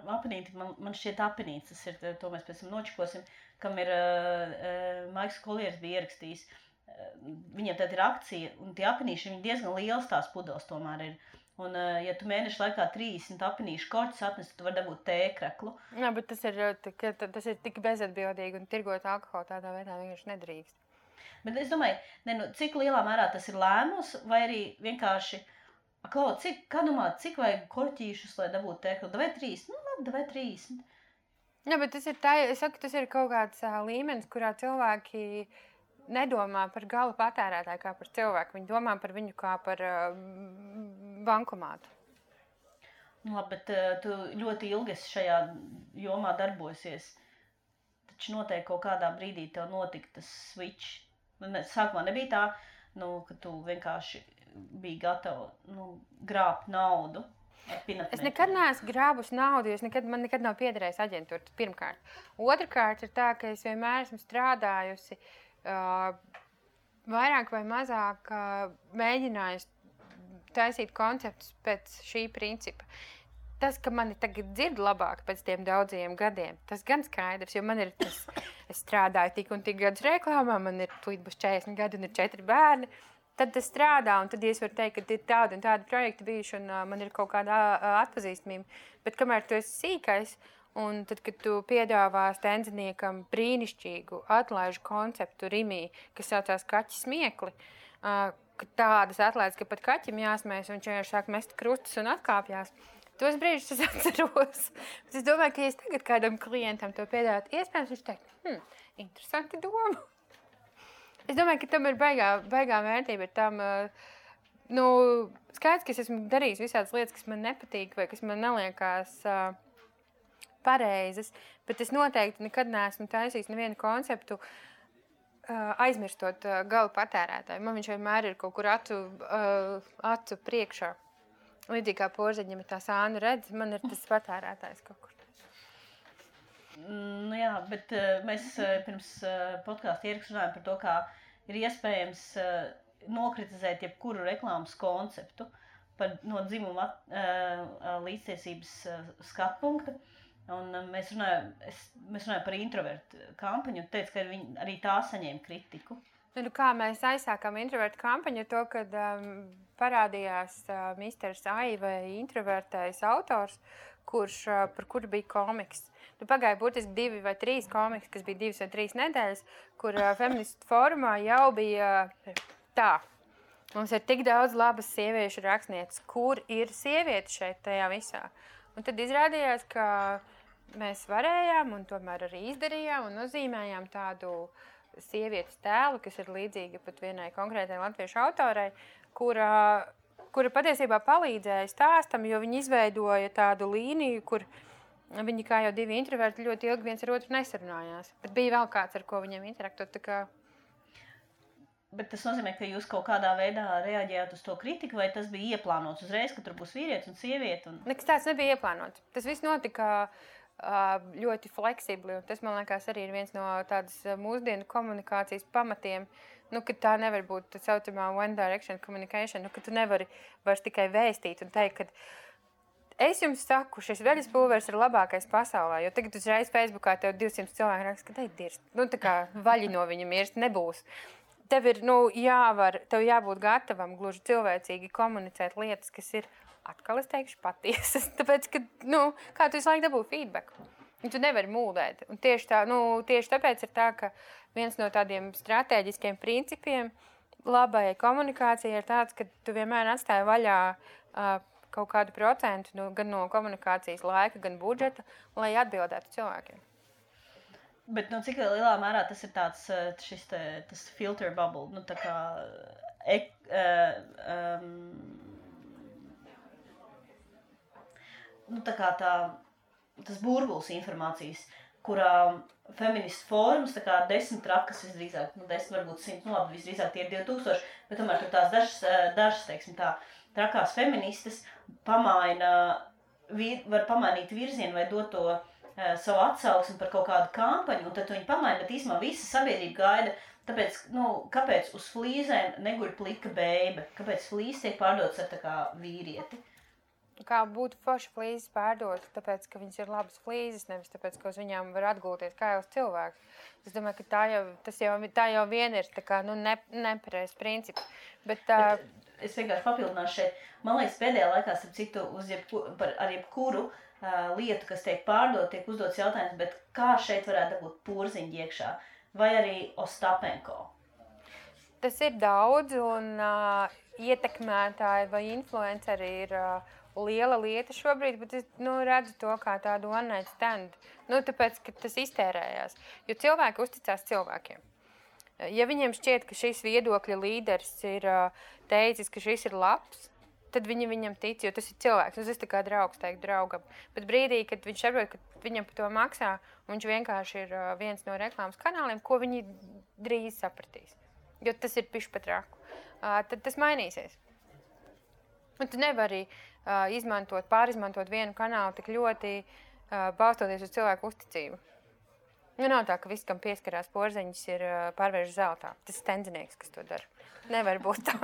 Apinīti, man šķiet apinīts, tas ir, to mēs pēc tam nočikosim, kam ir Maiks Kolieris bija ierakstījis. Viņiem tad ir akcija, un tie apinīši, viņi diezgan liels tās pudeles tomēr ir. Un, ja tu mēnešu laikā 30 apinīšu korķus atnes, tu vari dabūt tēkreklu. Jā, bet tas ir tik bezatbildīgi, un tirgot alkoholu tādā veidā vienkārši nedrīkst. Bet es domāju, cik lielā mērā tas ir lēmums, vai arī vienkārši, cik vajag korķīšus, lai dabūtu tēklu? Davai 30? Labi, davai 30. Jā, bet tas ir tā, es saku, tas ir kaut kāds līmenis, kurā cilvēki nedomā par gala patērētāju kā par cilvēku. Viņi domā par viņu kā par bankomātu. Labi, bet tu ļoti ilgi šajā jomā darbosies. Taču noteikti kaut kādā brīdī tev notika tas switch. Sākumā nebija tā, ka tu vienkārši biji gatava grābt naudu. Es nekad neesmu grābus naudu, jo man nekad nav piederējis aģentūra, pirmkārt. Otrakārt ir tā, ka es vienmēr esmu strādājusi vairāk vai mazāk mēģinājusi taisīt konceptus pēc šī principa. Tas, ka mani tagad dzird labāk pēc tiem daudziem gadiem, tas gan skaidrs, jo man ir tas, es strādāju tik un tik gadus reklāmā, man ir būs 40 gadi un ir 4 bērni, tad tas strādā, un tad es varu teikt, ka ir tādi un tādi projekti bijuši, un man ir kaut kāda atpazīstamība. Bet kamēr tu esi sīkais, un tad, kad tu piedāvā stenziniekam brīnišķīgu atlaižu konceptu Rimī, kas saucās kaķi smiekli, tādas atlaides, ka pat kaķim jāsmējas, un viņš vienkārši sāk mest krustus un atkāpjās. Tos brīžus es atceros. Bet es domāju, ka ja es tagad kādam klientam to piedāvātu, iespējams viņš teikt, interesanti doma. Es domāju, ka tam ir baigā vērtība. Tam, skaidrs, ka es esmu darījis visādas lietas, kas man nepatīk vai kas man neliekās pareizas, bet es noteikti nekad neesmu taisījis nevienu konceptu aizmirstot gala patērētāju. Man viņš vienmēr ir kaut kur acu priekšā. Līdzīgi kā porziņam ir tā sānu redz, man ir tas patērētājs kaut kur. Nu jā, bet mēs pirms podkāsta ierakstu runājam par to, kā ir iespējams nokritizēt jebkuru reklāmas konceptu no dzimuma līdztiesības skatpunkta. Un mēs runājam par introvertu kampaņu un teicu, ka arī tā saņēma kritiku. Nu, kā mēs aizsākām introvertu kampaņu, to, kad parādījās Misters Ai vai introvertais autors, par kuru bija komiks. Nu, pagāja būtiski 2 vai 3 komiks, kas bija 2 vai 3 nedēļas, kur feministu fórumā jau bija tā. Mums ir tik daudz labas sieviešu rakstnieces, kur ir sievietes šeit tajā visā. Un tad izrādījās, ka mēs varējām un tomēr arī izdarījām un nozīmējām tādu sievietes tēlu, kas ir līdzīga pat vienai konkrētai latviešu autorai, kura patiesībā palīdzēja stāstam, jo viņi izveidoja tādu līniju, kur viņi kā jau 2 introverti ļoti ilgi viens ar otru nesarunājās. Bet bija vēl kāds, ar ko viņiem interaktot. Bet tas nozīmē, ka jūs kaut kādā veidā reaģējāt uz to kritiku, vai tas bija ieplānots uzreiz, ka tur būs vīrietis un sieviete? Nekas tāds nebija ieplānots. Tas viss notika ļoti fleksibli, un tas, man liekas, arī ir viens no tādas mūsdienu komunikācijas pamatiem, ka tā nevar būt tā saucamā one direction communication, ka tu nevari vairs tikai vēstīt un teikt, ka es jums saku, šis veļas pulveris ir labākais pasaulē, jo tagad uzreiz Facebookā tev 200 cilvēki raksta, ka te ir dirst. Tā kā vaļi no viņa mirst nebūs. Tev ir, tev jābūt gatavam gluži cilvēcīgi komunicēt lietas, kas ir atkal es teikšu patiesas, tāpēc, ka, kā tu visu laiku dabū feedback. Un tu nevari mūldēt. Un tieši tāpēc ir tā, ka viens no tādiem stratēģiskiem principiem labai komunikācijai ir tāds, ka tu vienmēr atstāji vaļā kaut kādu procentu gan no komunikācijas laika, gan budžeta, lai atbildētu cilvēkiem. Bet cik lielā mērā tas ir tāds tas filter bubble, tā kā tas burbulis informācijas, kurā feministu fórums, 10 trakas visdrīzāk, 10 varbūt 100, labi, visdrīzāk tie ir 2000, bet tomēr tur tās dažas, teiksim tā, trakās feministas var pamainīt virzienu vai dot to savu atsauksmi par kaut kādu kampaņu, un tad viņi pamaina, bet īsumā visa sabiedrība gaida, tāpēc, kāpēc uz flīzēm neguļ plika beibe, kāpēc flīzes tiek pārdotas ar tā kā vīrieti? Kā būtu forši flīzes pārdot, tāpēc, ka viņas ir labas flīzes, nevis tāpēc, ka uz viņām var atgulties kā jau uz cilvēku. Es domāju, ka tā jau vien ir tā kā, nepareizs princips. Bet es vienkārši papildināšu šeit. Man liekas, pēdējā laikā, starp citu, ar jebkuru lietu, kas tiek pārdot, tiek uzdots jautājums, bet kā šeit varētu būt porziņi iekšā? Vai arī Ostapenko? Tas ir daudz, un ietekmētāji vai influenceri ir liela lieta šobrīd, bet es redzu to kā tādu one night stand. Tāpēc, ka tas iztērējās. Jo cilvēki uzticās cilvēkiem. Ja viņiem šķiet, ka šis viedokļa līderis ir teicis, ka šis ir labs, tad viņi viņam tic, jo tas ir cilvēks. Tas ir tā kā draugs teikt draugam. Bet brīdī, kad viņš saprot, ka viņam par to maksā, un viņš vienkārši ir viens no reklāmas kanāliem, ko viņi drīz sapratīs. Jo tas ir pišķi pat raku. Tad tas mainīsies. Un tu nevari pārizmantot vienu kanālu tik ļoti balstoties uz cilvēku uzticību. Nu, nav tā, ka viss, kam pieskarās porziņas, ir pārvērš zeltā. Tas ir tendzinieks, kas to dara. Nevar būt tā.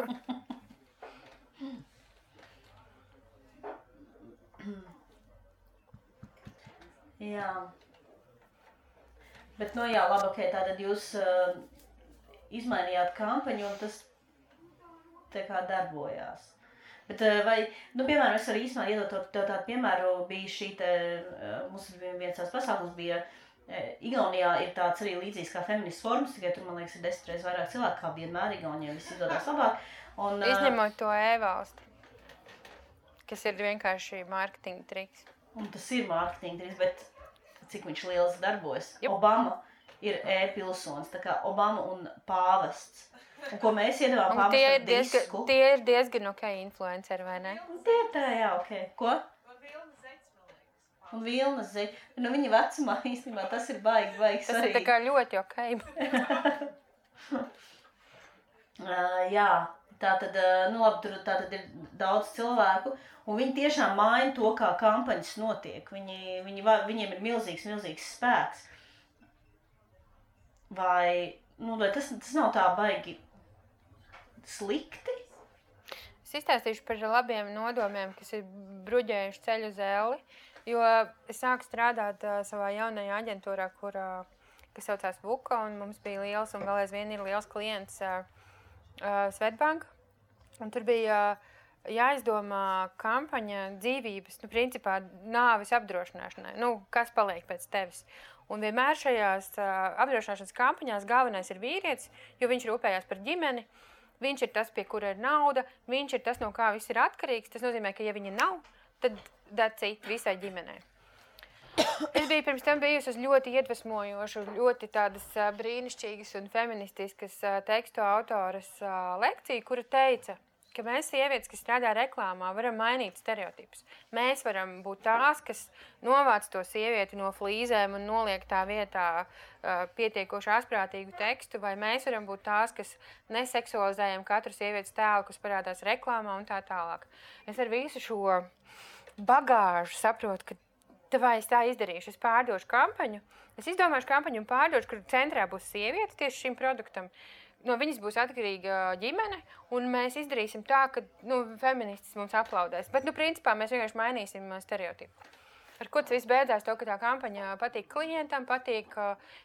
Jā. Bet, nu jā, labi, ok, tātad jūs izmainījāt kampaņu un tas tā kā darbojās. Bet vai, nu, piemēram, es arī īstenībā iedot tev tādu piemēru, bija šī te, mums viens tās pasākums bija, Igaunijā ir tāds arī līdzīgs kā feminists forums, tikai tur, man liekas, ir 10 reizes vairāk cilvēku, kā vienmēr Igaunijā viss izdodas labāk. Un, izņemot to e-valstu, kas ir vienkārši mārketinga triks. Un tas ir mārketinga triks, bet cik viņš liels darbojas. Obama ir e-pilsonis, tā kā Obama un pāvests. Un ko mēs iedevām pāvestam disku. Tie ir diezgan ok influenceri, vai ne? Tie ir tā, jā, ok. Ko? Un Vilnas zeķi. Nu, viņa vecumā īstenībā tas ir baigi svarīgi. Tas ir tā kā ļoti ok. Jā, tātad, nu labi, tur tātad ir daudz cilvēku, un viņi tiešām maina to, kā kampaņas notiek. Viņiem ir milzīgs spēks. Vai tas nav tā baigi slikti? Es izstāstīšu par labiem nodomiem, kas ir bruģējuši ceļu uz elli. Jo es sāku strādāt savā jaunajā aģentūrā, kas saucās Vuka, un mums bija liels un vēl aizvien ir liels klients Svetbank. Un tur bija jāizdomā kampaņa dzīvības, nu, principā nāves apdrošināšanai. Nu, kas paliek pēc tevis? Un vienmēr šajās apdrošināšanas kampaņās galvenais ir vīrietis, jo viņš rūpējās par ģimeni. Viņš ir tas, pie kura ir nauda, viņš ir tas, no kā viss ir atkarīgs. Tas nozīmē, ka ja viņa nav, tad that's it visai ģimenei. Es biju pirms tam bijusi uz ļoti iedvesmojošu, ļoti tādas brīnišķīgas un feministiskas tekstu autoras lekciju, kura teica, ka mēs sievietes, kas strādā reklāmā, varam mainīt stereotipus. Mēs varam būt tās, kas novāc to sievieti no flīzēm un noliek tā vietā pietiekoši asprātīgu tekstu, vai mēs varam būt tās, kas neseksualizējam katru sievietes tēlu, kas parādās reklāmā un tā tālāk. Es ar visu šo bagāžu saprotu, ka vai es tā izdarīšu, es pārdošu kampaņu, es izdomāšu kampaņu un pārdošu, kur centrā būs sieviete tieši šim produktam. No viņas būs atkarīga ģimene, un mēs izdarīsim tā, ka feministis mums aplaudēs. Bet, principā, mēs vienkārši mainīsim stereotipu. Ar ko tas viss beidzās to, ka tā kampaņa patīk klientam, patīk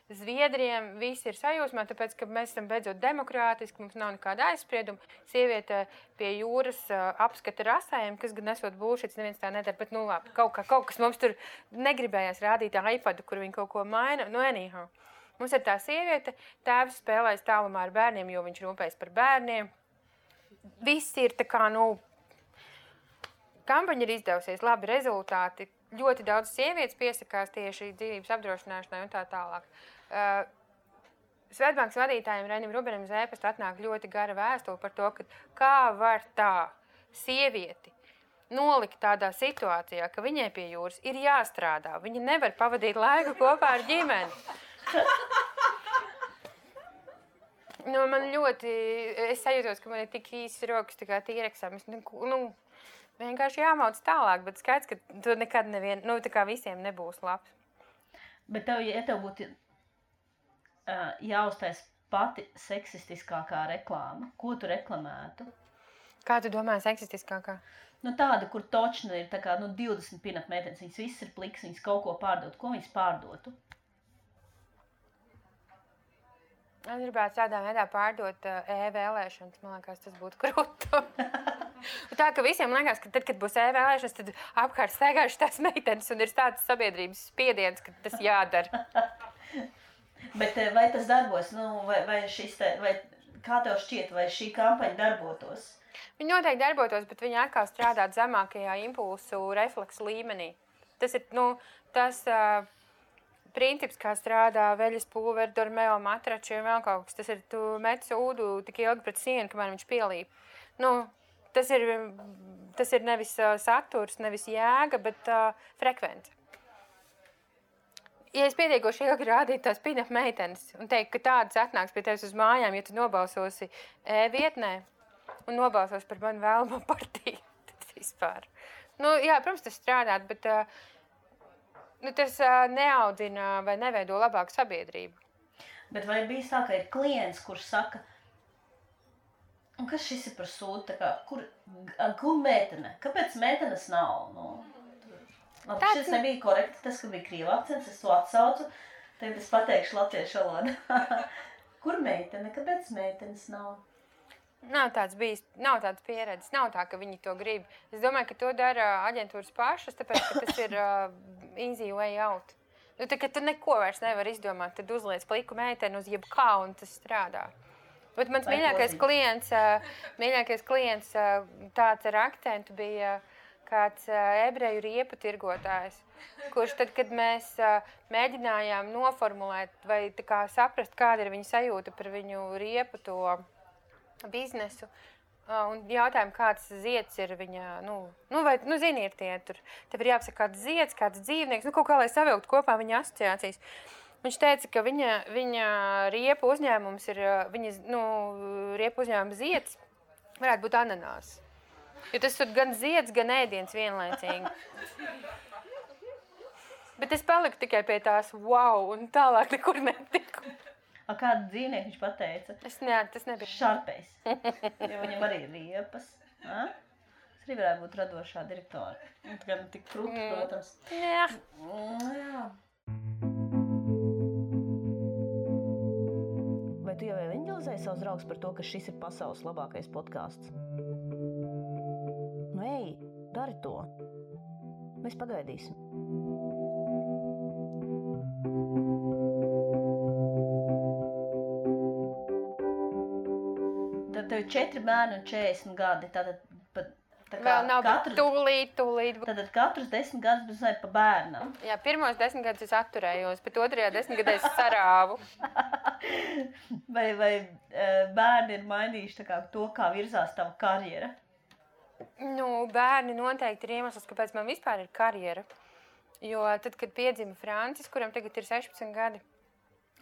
zviedriem, visi ir sajūsmā, tāpēc, ka mēs esam beidzot demokrātiski, mums nav nekāda aizsprieduma. Sieviete pie jūras apskata rasējiem, kas gan esot bullshits, neviens tā nedara, bet, labi, kaut kas mums tur negribējās rādīt iPadu, kur viņi kaut ko maina, anyhow. Mums ir tā sieviete, tēvs spēlēs tālumā ar bērniem, jo viņš rūpējas par bērniem. Viss ir tā kā, kampaņa ir izdevusies, labi rezultāti. Ļoti daudz sievietes piesakās tieši dzīvības apdrošināšanai un tā tālāk. Svetbankas vadītājiem Reinim Rubenim uz e-pastu atnāk ļoti gara vēstule par to, ka kā var tā sievieti nolikt tādā situācijā, ka viņai pie jūras ir jāstrādā. Viņa nevar pavadīt laiku kopā ar ģimeni. Man ļoti, es sajūtos, ka man ir tik īsas rokas, tā kā tīreksam. Vienkārši jāmauc tālāk, bet skaidrs, ka tu nekad tā kā visiem nebūs labs. Bet ja tev būtu jāuztais pati seksistiskākā reklāma, ko tu reklamētu? Kā tu domā seksistiskākā? Tāda, kur točna ir 20 pinat meitenes, viņas viss ir pliks, viņas kaut ko pārdot. Ko viņas pārdotu? Es gribētu tādā veidā pārdot e-vēlēšanas, man liekas, tas būtu krūtu. Tā, ka visiem liekas, ka tad, kad būs e-vēlēšanas, tad apkārt staigājuši tās meitenes un ir tāds sabiedrības spiediens, ka tas jādara. Bet vai tas darbos? Vai kā tev šķiet, vai šī kampaņa darbotos? Viņa noteikti darbotos, bet viņa atkal strādā zemākajā impulsu refleksu līmenī. Tas ir, tas princips, kā strādā veļas pulveri, dormeo matrači un vēl kaut kas. Tas ir, tu met sūdu tik ilgi pret sienu, kamēr viņš pielīp. Tas ir nevis saturs, nevis jēga, bet frekvence. Ja es pietiekoši ilgi rādītu tās pin-up meitenes un teikt, ka tādas atnāks pie tevis uz mājām, ja tu nobalsosi e-vietnē un nobalsos par manu vēlamo partiju, tad vispār. Jā, protams, tas strādāt, bet tas neaudzina vai neveido labāku sabiedrību. Bet vai bijis tā, ka ir klients, kurš saka, un kas šis ir par sūdu, tā kā, kur meitene? Kāpēc meitenes nav? Labi, šis nebija korekti, tas, ka bija krīva akcents, es to atsaucu, tagad es pateikšu latviešu valodā. Kur meitene? Kāpēc meitenes nav? Nav tāds pieredzes, nav tā, ka viņi to grib. Es domāju, ka to dara aģentūras pašas, tāpēc, ka tas ir easy way out. Tā, ka tu neko vairs nevar izdomāt, tad uzliec pliku meiteni uz jebkā un tas strādā. Bet mans mīļākais klients tāds ar akcentu bija kāds ebreju riepu tirgotājs, kurš tad, kad mēs mēģinājām noformulēt vai tā kā saprast, kāda ir viņa sajūta par viņu riepu to biznesu, un jautājām, kāds zieds ir viņa, zini, ir tie tur, tev ir jāapsaka kāds zieds, kāds dzīvnieks, kaut kā, lai savilkt kopā viņa asociācijas. Viņš teica, ka viņa riepu uzņēmums ir, riepu uzņēmuma zieds varētu būt ananās. Jo tas ir gan zieds, gan ēdiens vienlaicīgi. Bet es paliku tikai pie tās wow, un tālāk nekur netiku. Kādu dzīvnieku viņš pateica? Tas nebija. Šarpejs. Jo viņam arī ir riepas. Tas arī varētu būt radošā direktora. Gan tik krūti, protams. Jā. Jā. Vai tu jau evanģelizēji savus draugus par to, ka šis ir pasaules labākais podcasts? Ej, dari to. Mēs pagaidīsim. Tad tev ir 4 bērni un 40 gadi. Tātad vēl nav, bet tūlīt. Tātad katrs 10 gadus bez pa bērnam. Jā, pirmos 10 gadus es atturējos, bet otrajā 10 gadā es sarāvu. Vai bērni ir mainījuši to, kā virzās tava karjera? Bērni noteikti ir iemesls, kāpēc man vispār ir karjera. Jo tad, kad piedzima Francis, kuram tagad ir 16 gadi,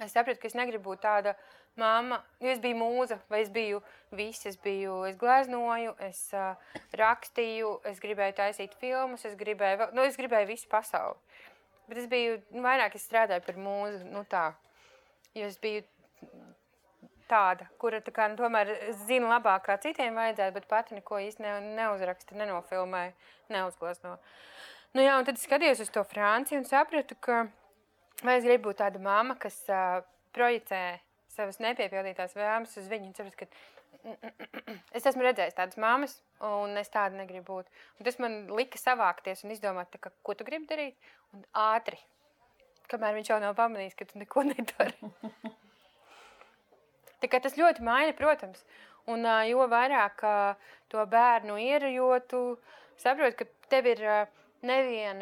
es sapratu, ka es negribu būt tāda mamma, jo es biju mūza, vai es biju viss, es gleznoju, es rakstīju, es gribēju taisīt filmas, es gribēju visu pasauli. Bet es biju, vairāk es strādāju par mūzu, tā, jo es biju tāda, kura tomēr zina labāk, kā citiem vajadzētu, bet pati neko īsti neuzraksta, nenofilmēja, neuzglezno. Un tad es skatījos uz to Franciju un sapratu, ka vai es gribu būt tāda mamma, kas projicē savas nepiepildītās vēlmes uz viņu un sapratu, ka es esmu redzējis tādas mammas un es tāda negribu būt. Un tas man lika savākties un izdomāt, ko tu gribi darīt un ātri, kamēr viņš jau nav pamanījis, ka tu neko nedari. Tā kā tas ļoti maina, protams, un jo vairāk to bērnu ir, jo tu saproti, ka tev ir nevien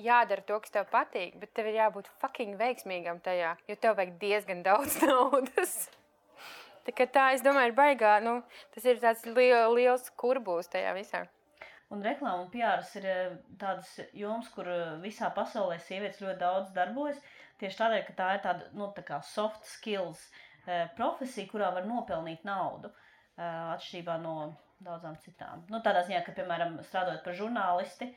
jādara to, kas tev patīk, bet tev ir jābūt fucking veiksmīgam tajā, jo tev vajag diezgan daudz naudas. Tā, es domāju, ir baigā, tas ir tāds liels kurbūs tajā visā. Un reklāma un PRs ir tādas jomas, kur visā pasaulē sievietes ļoti daudz darbojas, tieši tādēļ, ka tā ir tāda, tā kā soft skills profesija, kurā var nopelnīt naudu, atšķirībā no daudzām citām. Tādā ziņā, ka, piemēram, strādājot par žurnālisti,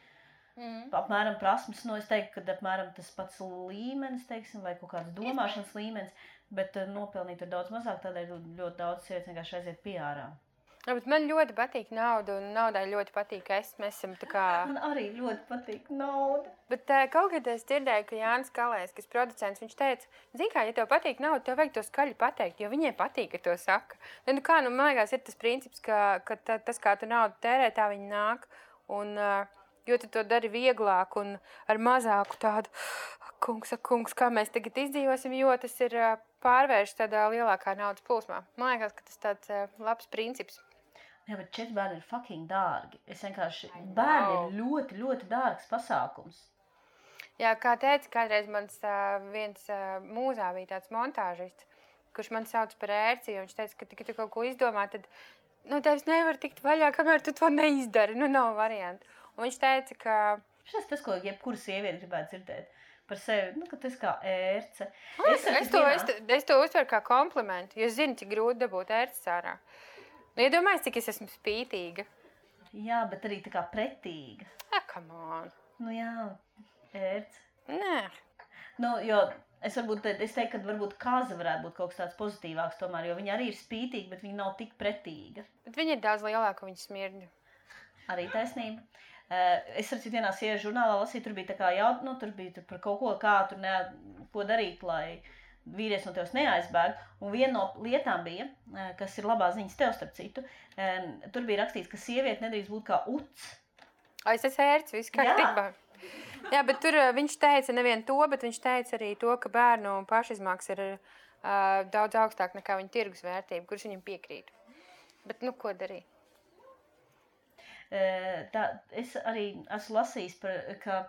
apmēram prasmes, es teiktu, ka apmēram tas pats līmenis, teiksim, vai kaut kāds domāšanas līmenis, bet nopelnīt ir daudz mazāk, tādēļ ļoti daudz sievietes vienkārši aiziet PR-ā. Bet man ļoti patīk nauda, un naudai ļoti patīk mēs esam tā kā... Man arī ļoti patīk nauda. Bet kaut kad es dzirdēju, ka Jānis Kalējs, kas producents, viņš teica, zini kā, ja tev patīk nauda, tev vajag to skaļi pateikt, jo viņiem patīk, ka to saka. Man liekas, ir tas princips, ka tas, kā tu naudu tērē, tā viņi nāk, un jo tu to dari vieglāk un ar mazāku tādu, kungs, kā mēs tagad izdzīvosim, jo tas ir pārvērš tādā lielākā naudas plūsmā. Man liekas, ka tas tāds labs princips. Jā, bet 4 bērni ir fucking dārgi. Bērni ir ļoti, ļoti dārgs pasākums. Jā, kā teica, kādreiz mans viens mūzā bija tāds montāžists, kurš man sauc par ērci, un viņš teica, ka, kad tu kaut ko izdomā, tad tevis nevar tikt vaļā, kamēr tu to neizdari. Nav variantu. Un viņš teica, ka... Šis tas, ko jebkura sieviete gribētu dzirdēt par sevi, ka tas kā ērce. Es to uztveru kā komplimentu, jo es zinu, cik grūti dabūt ērces ārā. Iedomājies, cik es esmu spītīga. Jā, bet arī tā kā pretīga. Come on. Jā, ērce. Nē. Nu, jo es teiktu, ka varbūt kaza varētu būt kaut kas tāds pozitīvāks tomēr, jo viņa arī ir spītīga, bet viņa nav tik pretīga. Bet viņa ir daudz lielāka, viņa smirdņu. Arī taisnība. Es ar citu vienā sieviešu žurnālā lasīju, tur bija tā kā tur bija par kaut ko, kā tur ko darīt, lai vīrietis no tevis neaizbēg. Un viena no lietām bija, kas ir labā ziņas tev starp citu, tur bija rakstīts, ka sieviete nedrīkst būt kā uts. Es esmu ērts, viss kārtībā. Jā, bet tur viņš teica nevien to, bet viņš teica arī to, ka bērnu pašizmaksas ir daudz augstāk nekā viņa tirgus vērtība, kurš viņam piekrīt. Bet, ko darīt? Es arī esmu lasījis, ka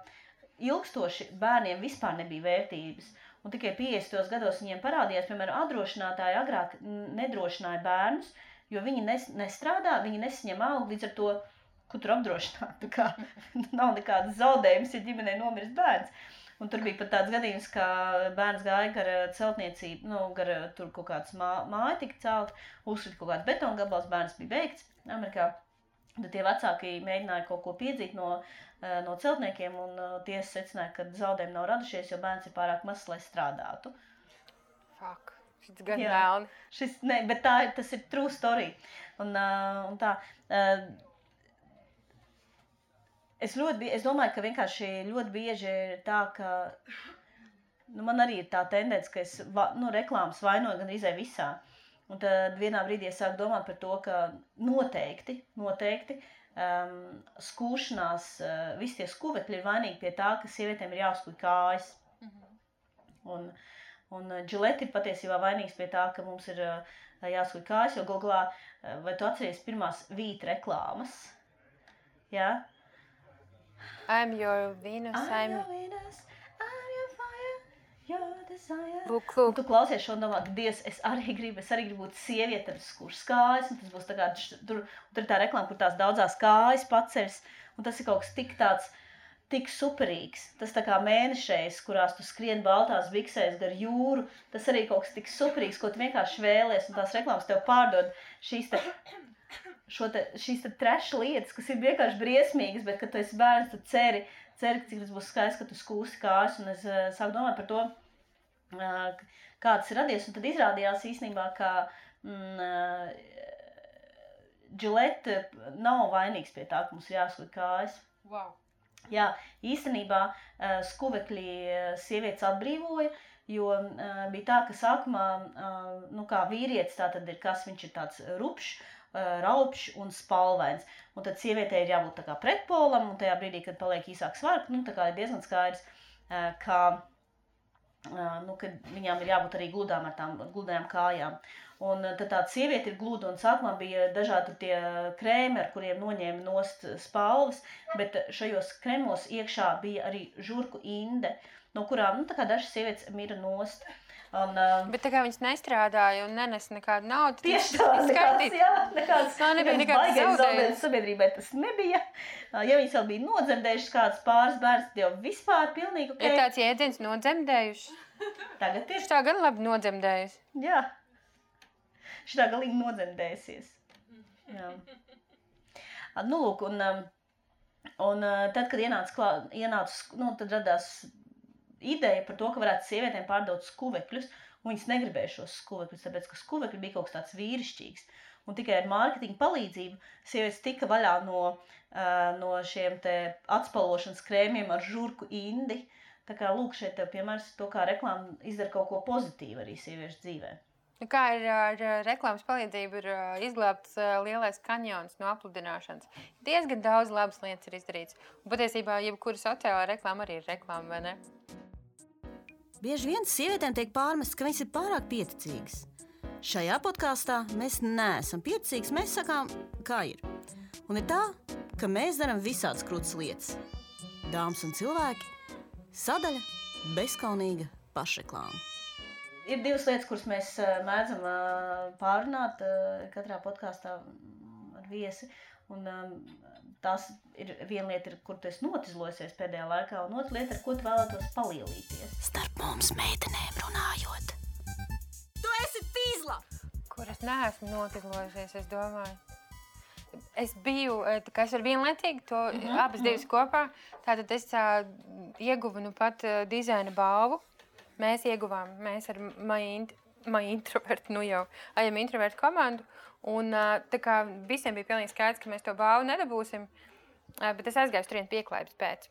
ilgstoši bērniem vispār nebija vērtības. Un tikai 50. gados viņiem parādījās, piemēram, apdrošinātāji agrāk nedrošināja bērnus, jo viņi nestrādā, viņi nesaņem algu, līdz ar to, ko tur apdrošināt. Nav nekādas zaudējumas, ja ģimenei nomirst bērns. Un tur bija pat tāds gadījums, ka bērns gāja gar celtniecību, gar tur kaut kāds māja tika celt, uzsrit kaut kāds betona gabals, bērns bija beigts Amerikā. Tad tie vecāki mēģināja kaut ko piedzīt no celtniekiem, un tiesa secināja, ka zaudējumi nav radušies, jo bērns ir pārāk mazs, lai strādātu. Fuck, šis gan vēlni. Bet tas ir true story. Un tā. Es domāju, ka vienkārši ļoti bieži ir tā, ka man arī ir tā tendence, ka es reklāmas vainoju gan izai visā. Un tad vienā brīdī es sāku domāt par to, ka noteikti skūšanās, visi tie skuvekļi ir vainīgi pie tā, ka sievietēm ir jāuzkuj kājas. Un Gillette ir patiesībā vainīgs pie tā, ka mums ir jāuzkuj kājas, jo Googlā, vai tu atceries pirmās vīt reklāmas? Jā? I'm your Venus, I'm your Venus, I'm your fire, your desire. Lūk. Un tu klausies šo un domā, ka Dievs, es arī gribu būt sieviete ar skūras kājas, un tas būs tā kā, tur ir tā reklāma, kur tās daudzās kājas paceļas, un tas ir kaut kas tik superīgs. Tas tā kā mēnešais, kurās tu skrien baltās biksēs gar jūru, tas arī kaut kas tik superīgs, ko tu vienkārši vēlies, un tās reklāmas tev pārdod šīs trash lietas, kas ir vienkārši briesmīgas, bet, kad tu esi bērns, tu ceri, cik tas būs skaists, ka tu skūsi kājas, un es sāku domāt par to, kā tas ir radies, un tad izrādījās īstenībā, ka Gillette nav vainīgs pie tā, ka mums ir jāskuj kājas. Wow. Jā, īstenībā skuvekļi sievietes atbrīvoja, jo bija tā, ka sākumā, kā vīrietis, tā tad ir kas, viņš ir tāds rupšs, raupšs un spalvains. Un tad sievietei ir jābūt tā kā pretpolam, un tajā brīdī, kad paliek īsāk svarka, tā kā ir diezgan skaidrs, ka viņām ir jābūt arī gludām ar tām gludajām kājām. Un tad tāda sieviete ir gluda, un sākumā bija dažādi tie krēmi, ar kuriem noņēma nost spalvas, bet šajos kremos iekšā bija arī žurku inde, no kurām, tā kā dažas sievietes mira nost. Bet tā kā viņas nestrādāja un nenes nekādu naudu, tieši nekāds zaudējums sabiedrībai tas nebija. Ja viņas vēl bija nodzemdējušas kāds pāris bērns, tad jau vispār pilnīgi ok. Ir tāds jēdziens nodzemdējuši. Tagad ir. Šitā gan labi nodzemdējusi. Jā. Šitā galīgi nodzemdējusies. Jā. Lūk, un tad, kad ienāca, tad radās ideja par to, ka varētu sievietēm pārdot skuvekļus, un viņas negribēja šos skuvekļus, tāpēc, ka skuvekļi bija kaut kas tāds vīrišķīgs. Un tikai ar mārketinga palīdzību sievietes tika vaļā no šiem te atspalvošanas krēmiem ar žurku indi. Tā kā lūk šeit tev piemērs to, kā reklāma izdara kaut ko pozitīvu arī sieviešu dzīvē. Kā ir ar reklāmas palīdzību ir izglābts lielais kanjons no apludināšanas. Diezgan daudz labas lietas ir izdarīts. Un patiesībā jebkura sociālā reklāma arī ir reklāma, vai ne? Bieži vien sievietēm tiek pārmests, ka viņas ir pārāk pieticīgas. Šajā podkāstā mēs neesam pieticīgas, mēs sakām, kā ir. Un ir tā, ka mēs darām visādas krūtas lietas. Dāmas un cilvēki, sadaļa bezkaunīga pašreklāma. Ir divas lietas, kuras mēs mēdzam pārunāt katrā podkāstā ar viesi. Un tās ir viena lieta, kur tu esi notizlojusies pēdējā laikā, un otra lieta, ar ko tu vēlētos palielīties. Starp mums meitenēm runājot. Tu esi fīzla! Kur es neesmu notizlojusies, es domāju. Es biju, es ar vienlaicīgi to abas divas kopā. Tātad es ieguva nu pat dizaina balvu. Mēs ieguvām, mēs ar Maja Introvertu, nu jau ajam Introvertu komandu. Un tā kā visiem bija pilnīgi skaidrs, ka mēs to balvu nedabūsim, bet es aizgāju turien pieklājības pēc.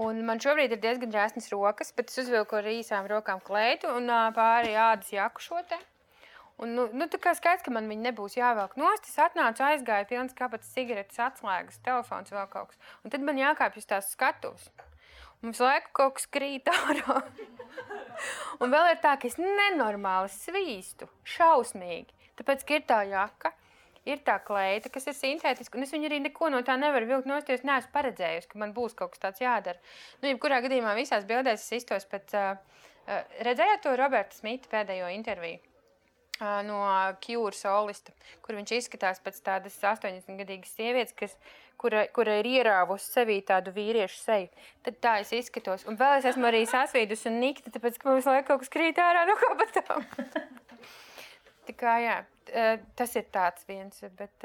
Un man šobrīd ir diezgan džēsnas rokas, bet es uzvilku ar īsām rokām kleitu un pāri ādas jaku šo te. Un, nu, tā kā skaidrs, ka man viņi nebūs jāvelk nost, es atnācu, aizgāju, pilns kabatas cigaretes, atslēgas, telefons vēl kaut kas. Un tad man jākāpj uz tās skatuves. Un visu laiku kaut kas krīt ārā. Un vēl ir tā, ka es nenormāli svīstu, šausmīgi. Tāpēc, ka ir tā jaka, ir tā kleita, kas ir sintētiska, un es viņu arī neko no tā nevaru vilkt nost, jo es neesmu paredzējusi, ka man būs kaut kas tāds jādara. Nu, jebkurā gadījumā visās bildēs es iztos pēc... Redzējāt to Roberta Smita pēdējo interviju? No Cure solista, kur viņš izskatās pēc tādas 80-gadīgas sievietes, kura ir ierāvusi sevī tādu vīriešu seju. Tad tā es izskatos. Un vēl es esmu arī sasvīdus un nikta, tāpēc, ka mums laiku kaut kas krīt ārā no kabatām. Tā kā, jā, tas ir tāds viens, bet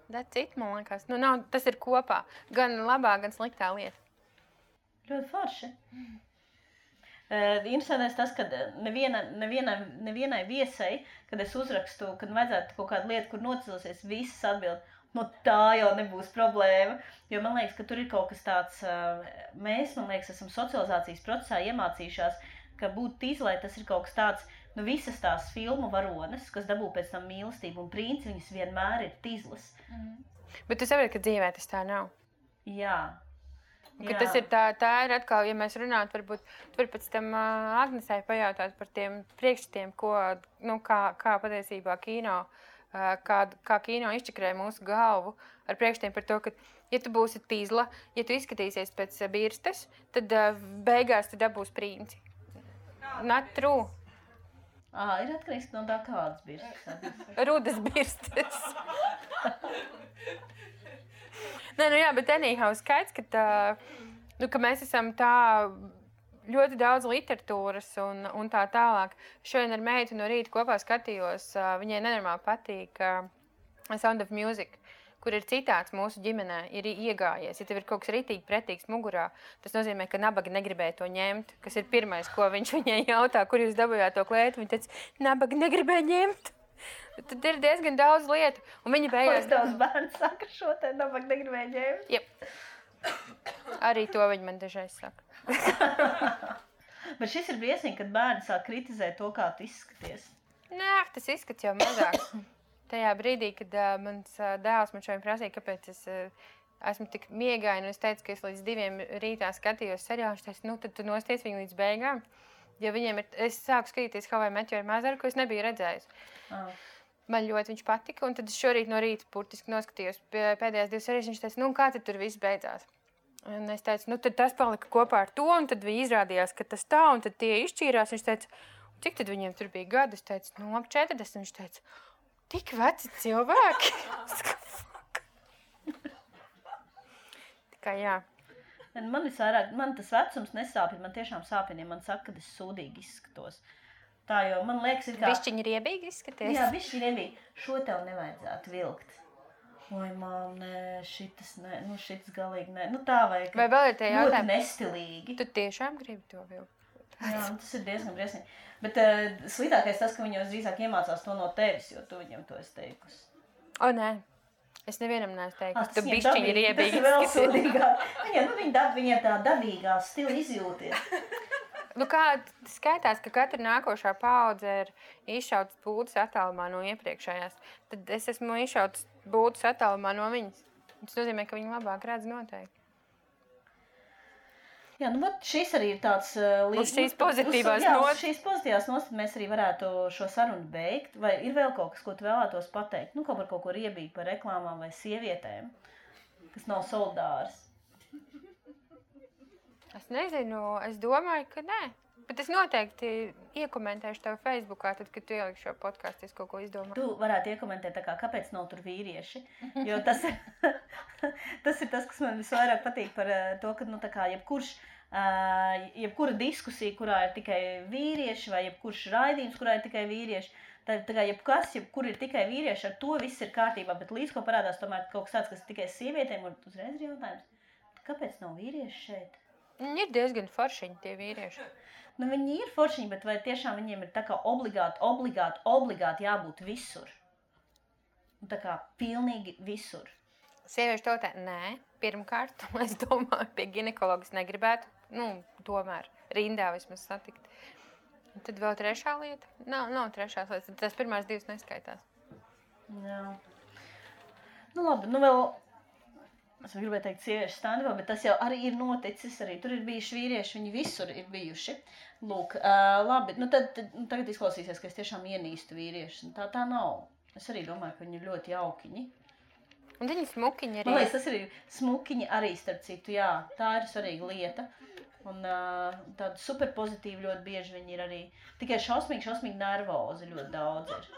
that's it, man liekas. Nu, nav, tas ir kopā. Gan labā, gan sliktā lieta. Ļoti forši. Interesantais tas, ka nevienai viesai, kad es uzrakstu, kad vajadzētu kaut kādu lietu, kur nocilsies, visas atbild, no tā jau nebūs problēma. Jo man liekas, ka tur ir kaut kas tāds, mēs, man liekas, esam socializācijas procesā iemācījušās, ka būt tīzlai tas ir kaut kas tāds, nu visas tās filmu varones, kas dabū pēc tam mīlestību un princi, viņas vienmēr ir tīzlas. Bet tu saproti, ka dzīvē tas tā nav. Jā. Tas ir tā ir atkal, ja mēs runātu, varbūt tur pēc tam Agnesai pajautāt par tiem priekšstatiem, kā patiesībā kino, kā kino izčakrē mūsu galvu ar priekšstatiem par to, ka, ja tu būsi tīzla, ja tu izskatīsies pēc birstes, tad beigās tu dabūs princi. Not true. Ir atkarīgs no tā kādas birstes. Rudas birstes. Nē, nu jā, bet anyhow skaidrs, ka mēs esam tā ļoti daudz literatūras un tā tālāk. Šodien ar meitu no rīta kopā skatījos, viņai nenormāli patīk Sound of Music, kur ir citāts mūsu ģimenē, ir iegājies. Ja tev ir kaut kas ritīgi pretīgs mugurā, tas nozīmē, ka nabaga negribēja to ņemt, kas ir pirmais, ko viņš viņai jautā, kur jūs dabujāt to klētu. Viņa teica, nabaga negribēja ņemt. Tad ir diezgan daudz lietu, un viņa beigās... Daudz bērns saka šo te, nabaga negribēja ņemt. Jep. Arī to viņa man dažreiz saka. Bet šis ir briesmīgi, kad bērni sāk kritizēt to, kā tu izskaties. Nē, tas izskats jau mazāk. Tajā brīdī, kad mans dēls man šodien prasīja, kāpēc es esmu tik miegaina, un es teicu, ka es līdz 2 rītā skatījos seriālu, viņš teica, nu tad tu nosties viņu līdz beigām. Jo viņiem ir, es sāku skatīties How I Met Your Mother, ko es nebiju redzējis. Man ļoti viņš patika, un tad es šorīt no rīta burtiski noskatījos pēdējās 2 serijas, viņš teica, nu kā tad tur viss beidzās? Un es teicu, nu tad tas palika kopā ar to, un tad viņi izrādījās, ka tas tā, un tad tie izšķīrās, viņš teica, cik tad viņiem tur bija gadi? Es teicu, nu ap 40, viņš teica, tik veci cilvēki. Tā kā jā. Man tas vecums nesāpina, man tiešām sāpina, ja man saka, ka es sūdīgi izskatos. Tā jau, man liekas, ir kā... Bišķiņi riebīgi izskaties? Jā, bišķiņi riebīgi. Šo tev nevajadzētu vilkt. Oi, mām, nē, šitas galīgi nē. Nu tā vajag. Vai vēl ir tie jautājumi? Ļoti nestilīgi. Tu tiešām gribi to vilkt? Jā, tas ir diezgan briesmīgi. Bet sliktākais tas, ka viņi jau drīzāk iemācās to no tevis, jo tu viņam to esi teikusi. O, nē. Es nevienam neesmu teikusi, tu bišķiņi riebīgi izskaties. Tas ir vēl sūdīgāk. Viņiem tā dabīgā stila izjūties. Nu kā skaitās, ka katra nākošā paudze ir izšautas būdas attālumā no iepriekšējās. Tad es esmu izšautas būdas attālumā no viņas. Tas nozīmē, ka viņi labāk redz noteikti. Jā, nu šis arī ir tāds... Uz šīs pozitīvās notas. Šīs pozitīvās notas mēs arī varētu šo sarunu beigt. Vai ir vēl kaut kas, ko tu vēlētos pateikt? Nu, kaut ko riebīgi par reklāmām vai sievietēm, kas nav solidāras. Es nezinu, es domāju, ka nē. Bet es noteikti iekomentēšu tev Facebookā, tad, kad tu ieliksi šo podcastu, es kaut ko izdomāju. Tu varētu iekomentēt, tā kā, kāpēc nav tur vīrieši. Jo tas ir tas, kas man visvairāk patīk par to, ka, nu, tā kā, jebkura diskusija, kurā ir tikai vīrieši, vai jebkurš raidījums, kurā ir tikai vīrieši, tā kā jebkur ir tikai vīrieši, ar to viss ir kārtībā, bet līdz ko parādās tomēr kaut kas tāds, kas tikai sievietēm, un uzreiz ir jautājums. Kāpēc nav vīrieši šeit? Ir diezgan foršiņi tie vīrieši. Nu, viņi ir foršiņi, bet vai tiešām viņiem ir tā kā obligāti jābūt visur? Un tā kā pilnīgi visur. Sieviešu tautē, nē. Pirmkārt, es domāju, pie ginekologas negribētu, tomēr rindā vismaz satikt. Un tad vēl trešā lieta. Nav trešās lietas, tas pirmās divas neskaitās. Jā. Nu labi, vēl... Es gribēju teikt sieviešu standībā, bet tas jau arī ir noticis. Arī tur ir bijuši vīrieši, viņi visur ir bijuši. Lūk, labi, tagad izklausīsies, ka es tiešām ienīstu vīriešus. Tā nav. Es arī domāju, ka viņi ir ļoti jaukiņi. Un viņi smukiņi arī. Man liekas, tas arī smukiņi arī, starp citu, jā. Tā ir svarīga lieta. Un tāda super pozitīva ļoti bieži viņi ir arī. Tikai šausmīgi nervozi ļoti daudz ir.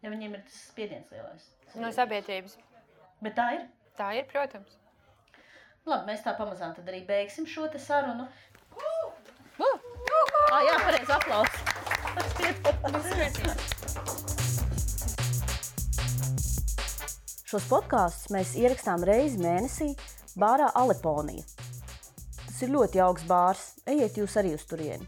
Ja viņiem ir tas spiediens lielais. No sabiedrības. Bet tā ir? Tā ir, protams. Labi, mēs tā pamazām tad arī beigsim šo te sarunu. Jā, pareizi aplausi. Šos podkāstus mēs ierakstām reizi mēnesī bārā Aleponija. Tas ir ļoti jauks bārs. Ejiet jūs arī uz turieni.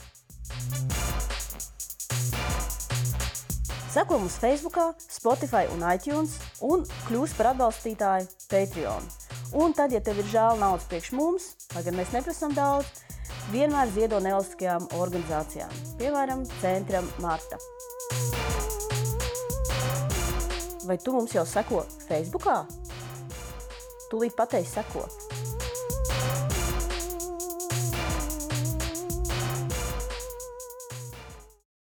Seko mums Facebookā, Spotify un iTunes un kļūst par atbalstītāju Patreon. Un tad, ja tev ir žēl naudas priekš mums, lai gan mēs neprasam daudz, vienmēr ziedo nevalstiskajām organizācijām, piemēram, Centram Marta. Vai tu mums jau seko Facebookā? Tūlīt pateiksi seko.